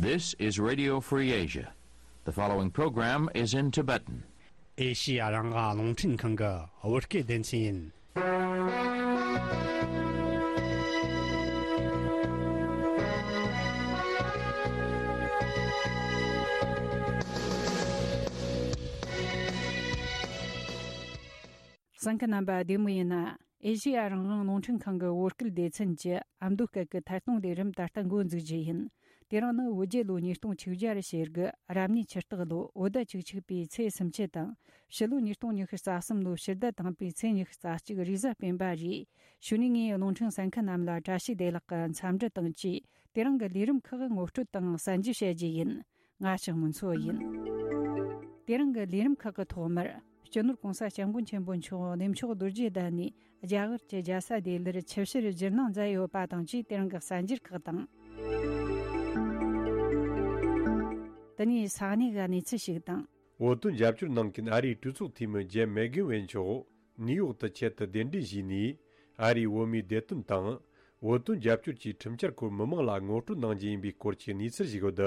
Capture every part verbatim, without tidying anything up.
This is Radio Free Asia. The following program is in Tibetan. ཨེ་ཤི་ཡ་རང་དབང་རླུང་འཕྲིན་ཁང་གི་བོད་སྐད་སྡེ་ཚན་ཡིན། གསན་མཁན་རྣམ་པ་བདེ་མོ་ཡིན་ན། ཨེ་ཤི་ཡ་རང་དབང་རླུང་འཕྲིན་ཁང་གི་བོད་སྐད་སྡེ་ཚན་གྱི་ཨ་མདོ་སྐད་ཀྱི་ཐད་གཏོང་ལས་རིམ་ད་ལྟ་འགོ་འཛུགས་རྒྱུ་ཡིན། དེ་རིང་ནི་བོད་རྒྱལ་ལོ་ཉིས་སྟོང་ཆིག་བརྒྱ་རེ་བྱེད་དགུ་རབ་གནས་ཆུ་སྟག་ལོ་བོད་ཟླ་བཅུ་གཅིག་པའི་ཚེས་སུམ་ཅུ་དང་། ཕྱི་ལོ་ཉིས་སྟོང་ཉི་ཤུ་རྩ་གསུམ་ལོ་ཕྱི་ཟླ་དང་པོའི་ཚེས་ཉི་ཤུ་རྩ་གཅིག་རེས་གཟའ་སྤེན་པ་རེད། གཞུག་ནས་ངས་རླུང་འཕྲིན་གསན་མཁན་རྣམས་ལ་བཀྲ་ཤིས་བདེ་ལེགས་ཀྱི་འཚམས་འདྲི་དང་བཅས། དེ་རིང་གི་ལས་རིམ་ཁག་ངོ་སྤྲོད་དང་གསན་རྒྱུ་བྱ་རྒྱུ་ཡིན། ང་ཞག་མུན་མཚོ་ཡིན། དེ་རིང་གི་ལས་རིམ་ཁག་གི་ཐོག་མར། སྤྱི་ནོར་༸གོང་ས་༸སྐྱབས་མགོན་ཆེན་པོ་མཆོག་གནས་མཆོག་རྡོ་རྗེ་གདན་ནས་རྒྱ་གར་གྱི་རྒྱལ་ས་ལྡི་ལིར་ཆིབས་ཞལ་བསྒྱུར་གནང་མཛད་ཡོད་པ་དང་བཅས། དེ་རིང་གི་གསར་འགྱུར་ཁག་དང་། དེ་ནས་ས་གནས་ཀྱི་གནས་ཚུལ་ཞིག་དང་། བོད་དོན་རྒྱབ་སྐྱོར་གནང་མཁན་ཨ་རིའི་གྲོས་ཚོགས་འཐུས་མི་ཇེམ་མེག་གྷེ་ཝེན་མཆོག་ནིའུ་ཡོག་ཏུ་ཆེད་དུ་གདན་འདྲེན་ཞུས་ནས། ཨ་རིའི་བོད་མིའི་བདེ་དོན་དང་། བོད་དོན་རྒྱབ་སྐྱོར་གྱི་ཁྲིམས་འཆར་སྐོར་མི་མང་ལ་ངོ་སྤྲོད་གནང་རྒྱུ་ཡིན་པའི་སྐོར་གྱི་གནས་ཚུལ་ཞིག་ཡོད། ད་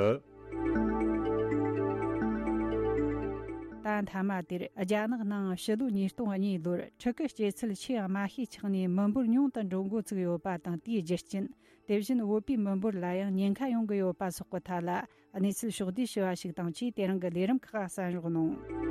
མཐའ་མ་དེར་རྒྱ་ནག་ནང་ཕྱི་ལོ་ཉིས་སྟོང་གཉིས་ལོར་ཕྲུ་གུ་སྐྱེ་ཚུལ་ཆེས་དམའ་ཤོས་ཆགས་ནས་མི་འབོར་ཉུང་དུ་འགྲོ་འགོ་ཚུགས་ཡོད་པ་དང་། དེའི་རྒྱུ་རྐྱེན། དེ་བཞིན་བོད་པའི་མི་འབོར་ལ་ཡང་ཉེན་ཁ་ཡོང་གི་ཡོད་པ་སོགས་ཀྱི་ཐད་ལ་གནས་ཚུལ་ཕྱོགས་བསྡུས་ཞུ་བ་ཞིག་དང་བཅས། དེ་རིང་གི་ལས་རིམ་ཁག་གསན་རོགས་གནང་།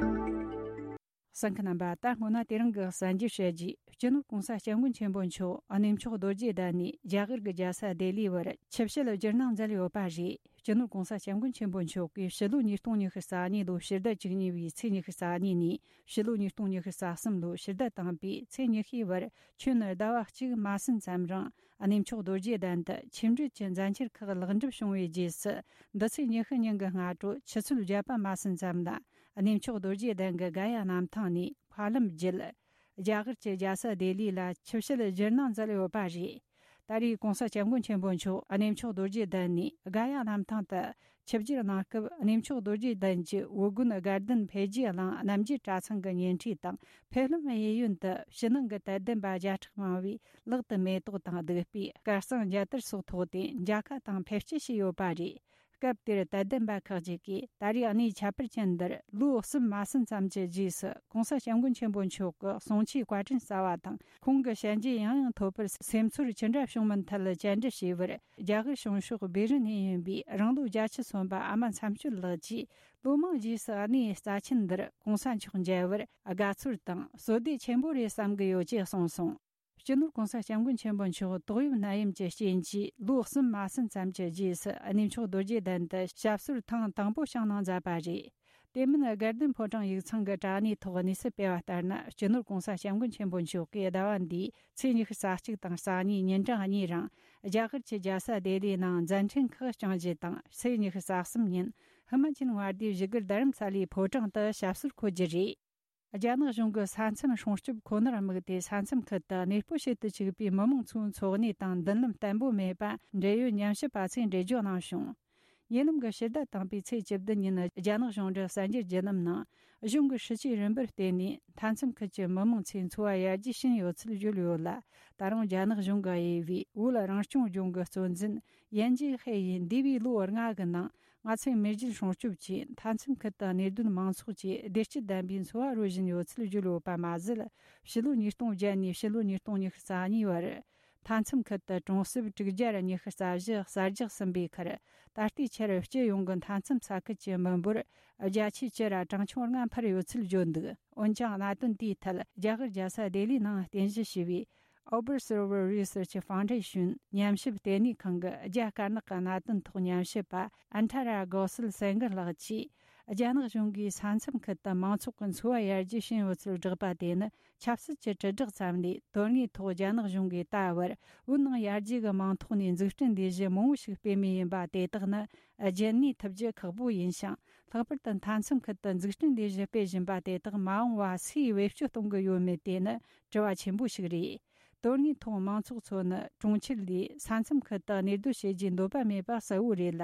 གསན་མཁན་རྣམ་པ། ད་སྔོན་ན་དེ་རིང་གི་གསར་འགྱུར་བཤད་རྗེས། སྤྱི་ནོར་༸གོང་ས་༸སྐྱབས་མགོན་ཆེན་པོ་མཆོག་གནས་མཆོག་རྡོ་རྗེ་གདན་ནས་རྒྱ་གར་གྱི་རྒྱལ་ས་ལྡི་ལི་བར་ཆིབས་ཞལ་བསྒྱུར་གནང་མཛད་ཡོད་པ་རེད། སྤྱི་ནོར་༸གོང་ས་༸སྐྱབས་མགོན་ཆེན་པོ་མཆོག་གིས་ཕྱི་ལོ་ཉིས་སྟོང་ཉི་ཤུ་རྩ་གཉིས་ལོའི་ཕྱི་ཟླ་བཅུ་གཉིས་པའི་ཚེས་ཉི་ཤུ་རྩ་གཉིས་ནས་ཕྱི་ལོ་ཉིས་སྟོང་ཉི་ཤུ་རྩ་གསུམ་ལོའི་ཕྱི་ཟླ་དང་པོའི་ཚེས་ཉི་ཤུའི་བར་ཁྱོན་ཟླ་བ་གཅིག་མ་ཟིན་ཙམ་རིང་གནས་མཆོག་རྡོ་རྗེ་གདན་དུ་ཆིབས་འགྲུལ་གྱི་མཛད་འཆར་ཁག་ལེགས་འགྲུབ་བྱུང་བའི་རྗེས་སུ། འདི་ཚེས་ཉི་ཤུ་ཉིན་གྱི་སྔ་དྲོ་ཆུ་ཚོད་བརྒྱད་པ་མ་ཟིན་ཙམ་ལ། གནས་མཆོག་རྡོ་རྗེ་གདན་གྱི་ག་ཡ་གནམ་ཐང་ནས་མཁའ་ལམ་བརྒྱུད། རྒྱ་གར་གྱི་རྒྱལ་ས་ལྡི་ལི་ལ་ཆིབས་ཞལ་བསྒྱུར་གནང་མཛད་ཡོད་པ་རེད། ད་རེས་༸གོང་ས་༸སྐྱབས་མགོན་ཆེན་པོ་མཆོག་གནས་མཆོག་རྡོ་རྗེ་གདན་ནས་ག་ཡ་གནམ་ཐང་དུ་ཆིབས་བསྒྱུར་གནང་སྐབས། གནས་མཆོག་རྡོ་རྗེ་གདན་གྱི་བོད་དགོན་དགའ་ལྡན་འཕེལ་རྒྱས་གླིང་རྣམ་རྒྱལ་གྲྭ་ཚང་གི་ཉེ་འཁྲིས་དང་། ཕེབས་ལམ་གཡས་གཡོན་དུ་ཕྱི་ནང་གི་དད་ལྡན་པ་བརྒྱ་ཕྲག་མང་བས་ལག་ཏུ་མེ་ཏོག་དང་བདུག་སྤོས། སྐར་གསང་རྒྱ་དར་སོགས་ཐོགས་ཏེ་མཇལ་ཁ་དང་ཕེབས་སྐྱེལ་བྱས་ཡོད་པ་རེད། སྐབས་དེར་དད་ལྡན་པ་ཁག་ཅིག་གིས། ད་རེས་གནས་ཁྱད་པར་ཅན་འདིར་ལོ་གསུམ་མ་ཟིན་ཙམ་གྱི་རྗེས་སུ་༸གོང་ས་༸སྐྱབས་མགོན་ཆེན་པོ་མཆོག་གི་གསུང་ཆོས་བཀའ་དྲིན་གསབ་པ་དང་། ཁོང་གི་ཞལ་མཇལ་ཡང་ཡང་ཐོབ་པར་སེམས་ཚོར་ཅི་འདྲ་བྱུང་མིན་ཐད་བཅར་འདྲི་བྱས་པར། རྒྱ་གར་བྱང་ཕྱོགས་སྦི་རི་ནས་ཡིན་པའི་རང་ལོ་བརྒྱད་ཅུ་སོན་པ་ཨ་མ་མཚམས་གཅོད་ལགས་ཀྱིས། ལོ་མང་རྗེས་སུ་གནས་རྩ་ཆེན་འདིར་༸གོང་ས་མཆོག་མཇལ་བར་དགའ་ཚོར་དང་བསོད་བདེ་ཆེན་པོ་རེད་བསམ་གྱི་ཡོད་ཅེས་གསུངས་སོང་། སྤྱི་ནོར་༸གོང་ས་༸སྐྱབས་མགོན་ཆེན་པོ་མཆོག་ཏོག་དབྱིབས་ནད་ཡམས་ཀྱི་རྐྱེན་གྱིས་ལོ་གསུམ་མ་ཟིན་ཙམ་གྱི་རྗེས་སུ་གནས་མཆོག་རྡོ་རྗེ་གདན་དུ་ཞབས་སོར་ཐེངས་དང་པོ་བྱུང་གནང་མཛད་པ་རེད། དེ་མིན་དགའ་ལྡན་ཕོ་བྲང་ཡིག་ཚང་གི་དྲ་གནས་ཐོག་གནས་ཚུལ་སྤེལ་བ་ལྟར་ན། སྤྱི་ནོར་༸གོང་ས་༸སྐྱབས་མགོན་ཆེན་པོ་མཆོག་གིས་ཟླ་བ་འདིའི་ཚེས་ཉི་ཤུ་རྩ་གཅིག་དང་རྩ་གཉིས་ཉིན་གྲངས་གཉིས་རིང་རྒྱ་གར་གྱི་རྒྱལ་ས་ལྡི་ལིའི་ནང་མཛད་འཕྲིན་ཁག་སྐྱོང་རྒྱུ་དང་། ཚེས་ཉི་ཤུ་རྩ་གསུམ་ཉིན་ཧི་མ་ཅལ་མངའ་སྡེའི་བཞུགས་སྒར་རྡ་རམ་ས་ལའི་ཕོ་བྲང་དུ་ཞབས་སོར་འཁོད་རྒྱུ་རེད། རྒྱ་ནག་གཞུང་གིས་ས་མཚམས་སྲུང་སྐྱོབ་ཁོ་ནར་དམིགས་ཏེ། ས་མཚམས་ཁུལ་དུ་གནས་སྤོ་བྱེད་དུ་བཅུག་པའི་མི་མང་ཚོའི་འཚོ་གནས་དང་མདུན་ལམ་བརྟན་པོ་མེད་པ། འབྲེལ་ཡོད་ཉམས་ཞིབ་པ་ཚོས་འགྲེལ་བརྗོད་གནང་བྱུང་། ཉེ་ལམ་གྱི་ཕྱི་ཟླ་དང་པོའི་ཚེས་བཅུ་བདུན་ཉིན། རྒྱ་ནག་གཞུང་འབྲེལ་གསར་འགྱུར་བརྒྱུད་ལམ་ནང་གཞུང་གི་སྲིད་ཇུས་རིམ་པར་བརྟེན་ནས། མཐའ་མཚམས་ཁུལ་གྱི་མི་མང་ཚོའི་འཚོ་བ་ཡར་རྒྱས་ཕྱིན་ཡོད་ཚུལ་བརྗོད་ཡོད་ལ། ད་རུང་རྒྱ་ནག་གཞུང་གིས་དབྱེ་བའི་བོད་རང་སྐྱོང་ལྗོངས་ཀྱི་གཙོ་འཛིན་ཡན་ཅིན་ཧེ་ཡིས། འདས་པའི་ལོ་ལྔ་གི་ནང་ང་ཚོས་མེས་རྒྱལ་སྲུང་སྐྱོབ་ཆེད། མཐའ་མཚམས་ཁུལ་དུ་གནས་སྡོད་མང་ཚོགས་ཀྱིས་བདེ་སྐྱིད་ལྡན་པའི་འཚོ་བ་རོལ་བཞིན་ཡོད་ཚུལ་བརྗོད་ཡོད་པ་མ་ཟད། ཕྱི་ལོ་ཉིས་སྟོང་བརྒྱད་ནས་ཕྱི་ལོ་ཉིས་སྟོང་ཉི་ཤུ་རྩ་གཉིས་བར། མཐའ་མཚམས་ཁུལ་དུ་གྲོང་གསེབ་དྲུག་བརྒྱ་ཉི་ཤུ་རྩ་བཞི་གསར་རྒྱག་ཟིན་པའི་ཁར། ད་ལྟའི་ཆར་སྤྱི་ཡོངས་ཀྱི་མཐའ་མཚམས་ས་ཁུལ་གྱི་མི་འབོར་བརྒྱ་ཆའི་བཅུ་ར་གྲངས་ཆུང་ལྔ་འཕར་ཡོད་ཚུལ་བརྗོད་འདུག་འོན་ཀྱང་། གནད་དོན་དེའི་ཐད་རྒྱ་གར་རྒྱལ་ས་ལྡི་ལིའི་ནང་རྟེན་གཞི་བྱས་པའི་Observer Research Foundation ཉམས་ཞིབ་ལྟེ་གནས་ཁང་གི་རྒྱ་དཀར་ནག་གི་གནད་དོན་ཐོག་ཉམས་ཞིབ་པ་ཨན་ཐ་ར་གོ་སལ་སེན་གྷི་ལགས་ཀྱིས། རྒྱ་ནག་གཞུང་གིས་ས་མཚམས་ཁུལ་དུ་མང་ཚོགས་ཀྱི་འཚོ་བ་ཡར་རྒྱས་ཕྱིན་ཡོད་ཚུལ་བསྒྲགས་པ་དེ་ནི། ཆབ་སྲིད་ཀྱི་དྲིལ་བསྒྲགས་ཙམ་ལས། དོན་དངོས་ཐོག་རྒྱ་ནག་གཞུང་གིས་ད་བར་བོད་ནང་ཡར་རྒྱས་ཀྱི་མིང་ཐོག་ནས་འཛུགས་སྐྲུན་ལས་གཞི་མང་བོ་ཞིག་སྤེལ་མུས་ཡིན་པ་དེ་དག་ནི། རྒྱུན་གནས་ཐུབ་རྒྱུ་ཁག་པོ་ཡིན་ཞིང་། ལྷག་པར་དུ་མཐའ་མཚམས་ཁུལ་དུ་འཛུགས་སྐྲུན་ལས་གཞི་སྤེལ་བཞིན་པ་དེ་དག་མ་འོངས་པ་སུས་བེད་སྤྱོད་གཏོང་གི་ཡོད་མེད་དེ་ནི་དྲི་བ་ཆེན་པོ་ཞིག་རེད། དོན་དངོས་ཐོག་མང་ཚོགས་ཚོ་ནི་གྲོང་ཁྱེར་ལས་ས་མཚམས་ཁུལ་དུ་གནས་སྡོད་བྱེད་རྒྱུའི་འདོད་པ་མེད་པ་གསལ་བོ་རེད་ལ།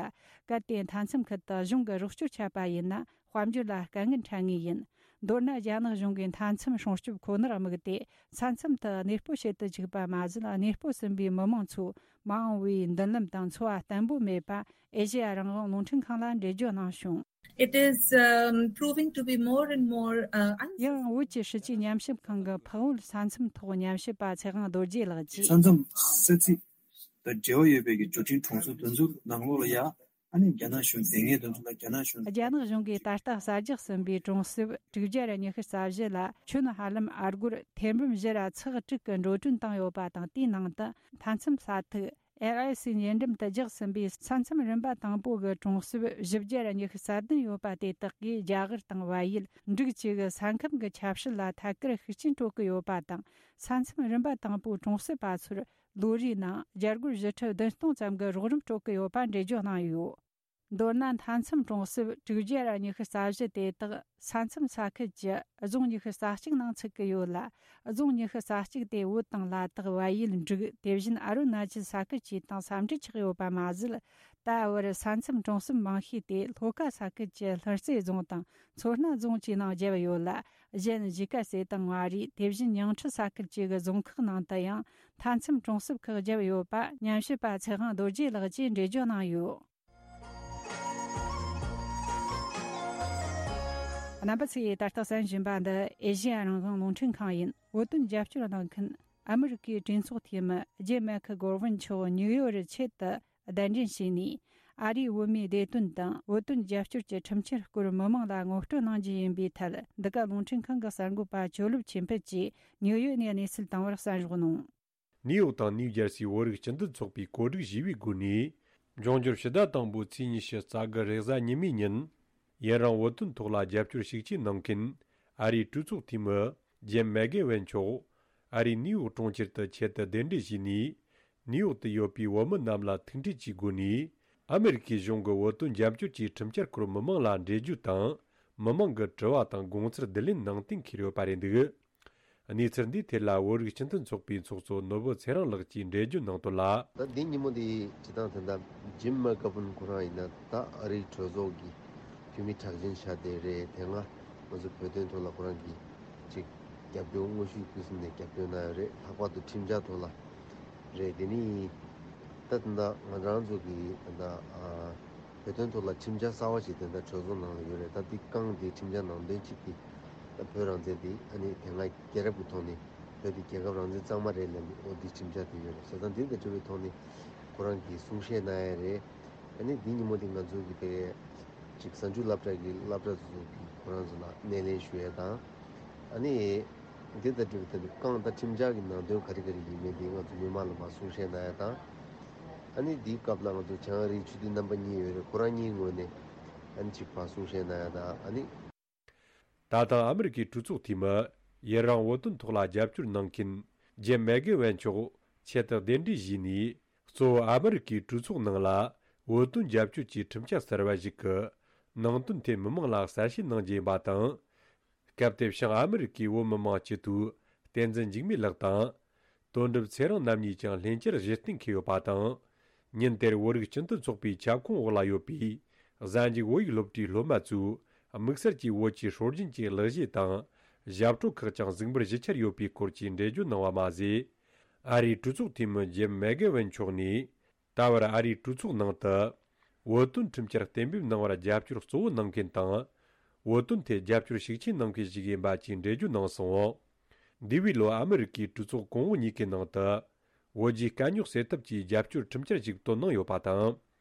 གལ་ཏེ་མཐའ་མཚམས་ཁུལ་དུ་གཞུང་གི་རོགས་སྐྱོར་ཆད་པ་ཡིན་ན། དཔལ་འབྱོར་ལ་དཀའ་ངལ་འཕྲད་ངེས་ཡིན། མདོར་ན་རྒྱ་ནག་གཞུང་གིས་མཐའ་མཚམས་སྲུང་སྐྱོབ་ཁོ་ནར་དམིགས་ཏེ། ས་མཚམས་དུ་གནས་སྤོ་བྱེད་དུ་བཅུག་པ་མ་ཟད། གནས་སྤོ་ཟིན་པའི་མི་མང་ཚོ་མ་འོངས་པའི་མདུན་ལམ་དང་འཚོ་བ་བརྟན་པོ་མེད་པ་ཨེ་ཤེ་ཡ་རང་དབང་རླུང་འཕྲིན་ཁང་ལ་འགྲེལ་བརྗོད་གནང་བྱུང་། It is, um, proving to be more and more, uh, unsustainable. ཡང་བོད་ཀྱི་སྲིད་ཇུས་ཉམས་ཞིབ་ཁང་གི་འཕགས་བོད་ས་མཚམས་ཐོག་ཉམས་ཞིབ་པ་ཚེ་དབང་རྡོ་རྗེ་ལགས་ཀྱིས། ས་མཚམས་ས་ཚིགས་དང་འབྲེལ་བ་ཡོད་པའི་གི་འབྱོར་འབྲིང་གྲོང་ཚོ་དེ་ཚོ་ནང་ལོགས་ལ་ཡ། ཨ་ནི་རྒྱ་ནག་གཞུང་དེ་སྔའི་དོན་ཚོ་ལ་རྒྱ་ནག་གཞུང་། རྒྱ་ནག་གཞུང་གིས་ད་ལྟ་གསར་རྒྱག་ཟིན་པའི་གྲོང་གསེབ་དྲུག་བརྒྱ་ར་ཉི་ཤུ་རྩ་བཞི་ལ་ཁྱོན་ཧ་ལམ་ཨ་སྒོར་ཐེར་འབུམ་བཞི་ར་ཚེག་དྲུག་གི་འགྲོ་གྲོན་བཏང་ཡོད་པ་དང་། དེའི་ནང་དུ་མཐའ་མཚམས་ས་ཐིག་ཨེལ་ཨའི་སི་ཉེ་འགྲམ་དུ་རྒྱག་ཟིན་པའི་ས་མཚམས་རིམ་པ་དང་པོ་གི་གྲོང་གསེབ་བཞི་བརྒྱ་ར་ཉི་ཤུ་རྩ་བདུན་ཡོད་པ་དེ་དག་གིས་རྒྱ་གར་དང་བལ་ཡུལ་འབྲུག་བཅས་ཀྱི་ས་ཁམས་ཀྱི་ཆབ་སྲིད་ལ་ཐད་ཀར་ཤུགས་རྐྱེན་སྤྲོད་ཀྱི་ཡོད་པ་དང་། ས་མཚམས་རིམ་པ་དང་པོའི་གྲོང་གསེབ་པ་ཚོར་ལོ་རེའི་ནང་རྒྱ་སྒོར་བཞི་ཁྲི་བདུན་སྟོང་ཙམ་གྱི་རོགས་རམ་སྤྲོད་ཀྱི་ཡོད་པ་འགྲེལ་བརྗོད་གནང་ཡོད། མདོར་ན་མཐའ་མཚམས་གྲོང་གསེབ་དྲུག་བརྒྱ་ར་ཉི་ཤུ་རྩ་བཞི་དེ་དག་ས་མཚམས་ས་ཁུལ་གྱི་རྫོང་ཉི་ཤུ་རྩ་གཅིག་ནང་ཚུད་ཀྱི་ཡོད་ལ། རྫོང་ཉི་ཤུ་རྩ་གཅིག་དེ་བོད་དང་ལ་དྭགས། བལ་ཡུལ། འབྲུག་དེ་བཞིན་ཨ་རུ་ན་ཅལ་ས་ཁུལ་བཅས་དང་ས་འབྲེལ་ཆགས་ཡོད་པ་མ་ཟད། ད་བར་ས་མཚམས་གྲོང་གསེབ་མང་ཤོས་དེ་ལྷོ་ཁ་ས་ཁུལ་གྱི་ལྷུན་རྩེ་རྫོང་དང་མཚོ་སྣ་རྫོང་བཅས་ནང་བརྒྱབ་ཡོད་ལ། གཞན་གཞིས་ཀ་རྩེ་དང་མངའ་རིས་དེ་བཞིན་ཉིང་ཁྲི་ས་ཁུལ་བཅས་ཀྱི་རྫོང་ཁག་ནང་དུ་ཡང་མཐའ་མཚམས་གྲོང་གསེབ་ཁག་བརྒྱབ་ཡོད་པ་ཉམས་ཞིབ་པ་ཚེ་དབང་རྡོ་རྗེ་ལགས་ཀྱིས་འགྲེལ་བརྗོད་གནང་ཡོད། རྣམ་པ་ཚོས་ད་ལྟ་གསན་བཞིན་པ་འདི་ཨེ་ཤེ་ཡ་རང་དབང་རླུང་འཕྲིན་ཁང་ཡིན། བོད་དོན་རྒྱབ་སྐྱོར་གནང་མཁན་ཨ་མི་རི་ཀའི་གྲོས་ཚོགས་འཐུས་མི་ཇིམ་མེག་གྷོ་ཝན་མཆོག་ནིའུ་ཡོག་རུ་ཆེད་དུ་གདན་འདྲེན་བྱས་ནས། ཨ་རིའི་བོད་མིའི་བདེ་དོན་དང་བོད་དོན་རྒྱབ་སྐྱོར་གྱི་ཁྲིམས་འཆར་སྐོར་མི་མང་ལ་ངོ་སྤྲོད་གནང་རྒྱུ་ཡིན་པའི་ཐད། འདི་ག་རླུང་འཕྲིན་ཁང་གི་གསར་འགོད་པ་ཇོ་ལུབ་ཆོས་འཕེལ་གྱིས་ནིའུ་ཡོག་ནས་གནས་ཚུལ་བཏང་བར་གསན་རོགས་གནང་། ནིའུ་ཡོག་དང་ནིའུ་ཇར་སིའི་བོད་རིགས་སྤྱི་མཐུན་ཚོགས་པས་གོ་སྒྲིག་ཞུས་པའི་སྒོ་ནས། འབྱུང་འགྱུར་ཕྱི་ཟླ་དང་པོའི་ཚེས་ཉི་ཤུ་རྩ་དགུ་རེས་གཟའ་ཉི་མའི་ཉིན། ཡུན་རིང་བོད་དོན་ཐོག་ལ་རྒྱབ་སྐྱོར་ཤུགས་ཆེ་གནང་མཁན་ཨ་རིའི་གྲོས་ཚོགས་འཐུས་མི་ཇིམ་མེག་གྷོ་ཝན་མཆོག་ཨ་རིའི་ནིའུ་ཡོག་གྲོང་ཁྱེར་དུ་ཆེད་དུ་གདན་འདྲེན་ཞུས་ནས། ནིའུ་ཡོག་ཏུ་ཡོད་པའི་བོད་མི་རྣམས་ལ་ཐུག་འཕྲད་ཀྱི་སྒོ་ནས། ཨ་མི་རི་ཀའི་གཞུང་གི་བོད་དོན་རྒྱབ་སྐྱོར་གྱི་ཁྲིམས་འཆར་སྐོར་མི་མང་ལ་འགྲེལ་བརྗོད་དང་། མི་མང་གི་དྲི་བ་དང་དགོངས་ཚུལ་བསྡུ་ལེན་གནང་སྟེ་འཁྱེར་ཡོད་པ་རེད་འདུག། གནས་ཚུལ་འདིའི་ཐད་ལ་བོད་རིགས་སྤྱི་མཐུན་ཚོགས་པའི་ཚོགས་གཙོ་ནོར་བུ་ཚེ་རིང་ལགས་ཀྱིས་འགྲེལ་བརྗོད་གནང་དོན་ལ། ད་འདི་ཉིན་མོ་འདི་སྤྱི་བཏང་དེ་འདྲ་ཇིམ་མེག་གྷོ་ཝན་ཁོ་རང་ཡིན་ན་ད་ཨ་རིའི་གྲོས་ཚོགས་ཀྱི་འཐུས་མི་གྲགས་ཅན་ཆགས་བསྡད་རེད། དེ་སྔ་ང་ཚོ་བོད་དོན་ཐོག་ལ་ཁོ་རང་གིས་ཅིག་རྒྱབ་སྐྱོར་དངོས་ཤུགས་ཕུན་སུམ་ནས་རྒྱབ་སྐྱོར་གནང་ཡོད་རེད། ལྷག་པར་དུ་ཁྲིམས་འཆར་ཐོག་ལ་རེད། དེ་ནི་ད་དེ་འདྲ་ང་རང་ཚོ་གི་དེ་འདྲ་ཨ། བོད་དོན་ཐོག་ལ་ཁྲིམས་འཆར་གསར་བ་ཞིག་དེ་འདྲ་གྲོས་ཚོགས་ནང་ལ་ཡོད་རེད། ད་འདི་རྐང་འདི་ཁྲིམས་འཆར་ནང་དོན་གཅིག་འདི་ད་བོད་རང་བཙན་འདི་ཨ་ནི་དེ་སྔ་རྒྱལ་རབས་ཀྱི་ཐོག་ནས་བོད་འདི་རྒྱལ་ཁབ་རང་བཙན་གཙང་མ་རེད་ལབ་ནས་འོ་འདི་ཁྲིམས་འཆར་དེ་ཡོད་རེད་ཟེར། ད་འདི་དང་འབྲེལ་བའི་ཐོག་ནས་ཁོ་རང་གིས་གསུང་བཤད་གནང་ཡ་རེད། ཨ་ནི་འདི་ཉིན་མོ་འདི་ང་ཚོ་གི་དེ་ཅིག་གཟའ་མཇུག་སློབ་གྲྭ་གི་སློབ་གྲྭ་ཚོ་གི་ཁོ་རང་ཚོ་ལ་སྣེ་ལེན་ཞུ་ཡ་དང་། ཨ་ནི། འདི་ལྟར་འགྲུབ་པའི་ཐད་དུ་རྐང་དང་ཁྲིམས་འཆར་གྱི་ནང་དོན་ག་རེ་ག་རེ་ཡིན་མིན་འདི་ང་ཚོ་མི་མང་ལ་མར་གསུང་བཤད་གནང་ཡ་དང་། ཨ་ནི་འདིའི་སྐབས་ལ་ང་ཚོ་བྱང་ཨ་རིའི་ཆོས་དད་རྣམ་པ་གཉིས་ཡོད་རེད། ཁོ་རང་གཉིས་ངོས་ནས་ཨ་ནི་གཅིག་པ་གསུང་བཤད་གནང་ཡ་དང་། ཨ་ནི། ད་ཐེངས་ཨ་མི་རི་ཀའི་གྲོས་ཚོགས་འཐུས་མི་ཡུན་རིང་བོད་དོན་ཐོག་ལ་རྒྱབ་སྐྱོར་གནང་མཁན་ཇེམ་མེག་གྷོ་ཝན་མཆོག་ཆེད་དུ་གདན་འདྲེན་ཞུས་ནས། གཙོ་བོ་ཨ་མི་རི་ཀའི་གྲོས་ཚོགས་ནང་ལ་བོད་དོན་རྒྱབ་སྐྱོར་གྱི་ཁྲིམས་འཆར་གསར་བ་ཞིག་གི་ནང་དོན་ཐད་མི་མང་ལ་གསལ་བཤད་གནང་རྒྱུ་ཡིན་པ་དང་། སྐབས་དེར་བྱང་ཨ་མི་རི་ཀའི་བོད་མི་མང་སྤྱི་འཐུས་བསྟན་འཛིན་འཇིགས་མེད་ལགས་དང་། དོན་གྲུབ་ཚེ་རིང་རྣམ་གཉིས་ཀྱང་ལྷན་བཅར་གཞི་རྟེན་འཁེལ་ཡོད་པ་དང་། ཉིན་དེར་བོད་རིགས་སྤྱི་མཐུན་ཚོགས་པའི་ཁྱབ་ཁོངས་འོག་ལ་ཡོད་པའི་གཟའ་མཇུག་བོད་ཡིག་སློབ་གྲྭའི་སློབ་མ་ཚོས་དམིགས་བསལ་གྱིས་བོད་ཀྱི་སྲོལ་རྒྱུན་གྱི་གླུ་གཞས་དང་ཞབས་བྲོ་ཁག་ཀྱང་གཟིགས་འབུལ་ཞུ་འཆར་ཡོད་པའི་སྐོར་གྱི་འགྲེལ་བརྗོད་གནང་བ་མ་ཟད། ཨ་རིའི་གྲོས་ཚོགས་འཐུས་མི་ཇེམ་མེག་གྷོ་ཝན་མཆོག་ནས། ད་བར་ཨ་རིའི་གྲོས་ཚོགས་ནང་དུ་བོད་དོན་ཁྲིམས་འཆར་གཏན་འབེབས་གནང་བར་རྒྱབ་སྐྱོར་གཙོ་བོ་གནང་མཁན་དང་། བོད་དོན་ཐད་རྒྱབ་སྐྱོར་ཤུགས་ཆེ་གནང་མཁན་ཞིག་ཡིན་པ་བཅས་འགྲེལ་བརྗོད་གནང་སོང་། འདས་པའི་ལོ་ཨ་མི་རི་ཀའི་གྲོས་ཚོགས་གོང་འོག་གཉིས་ཀའི་ནང་དུ་བོད་རྒྱའི་དཀའ་རྙོག་སེལ་ཐབས་ཀྱི་རྒྱབ་སྐྱོར་ཁྲིམས་འཆར་ཞིག་བཏོན་གནང་ཡོད་པ་དང་།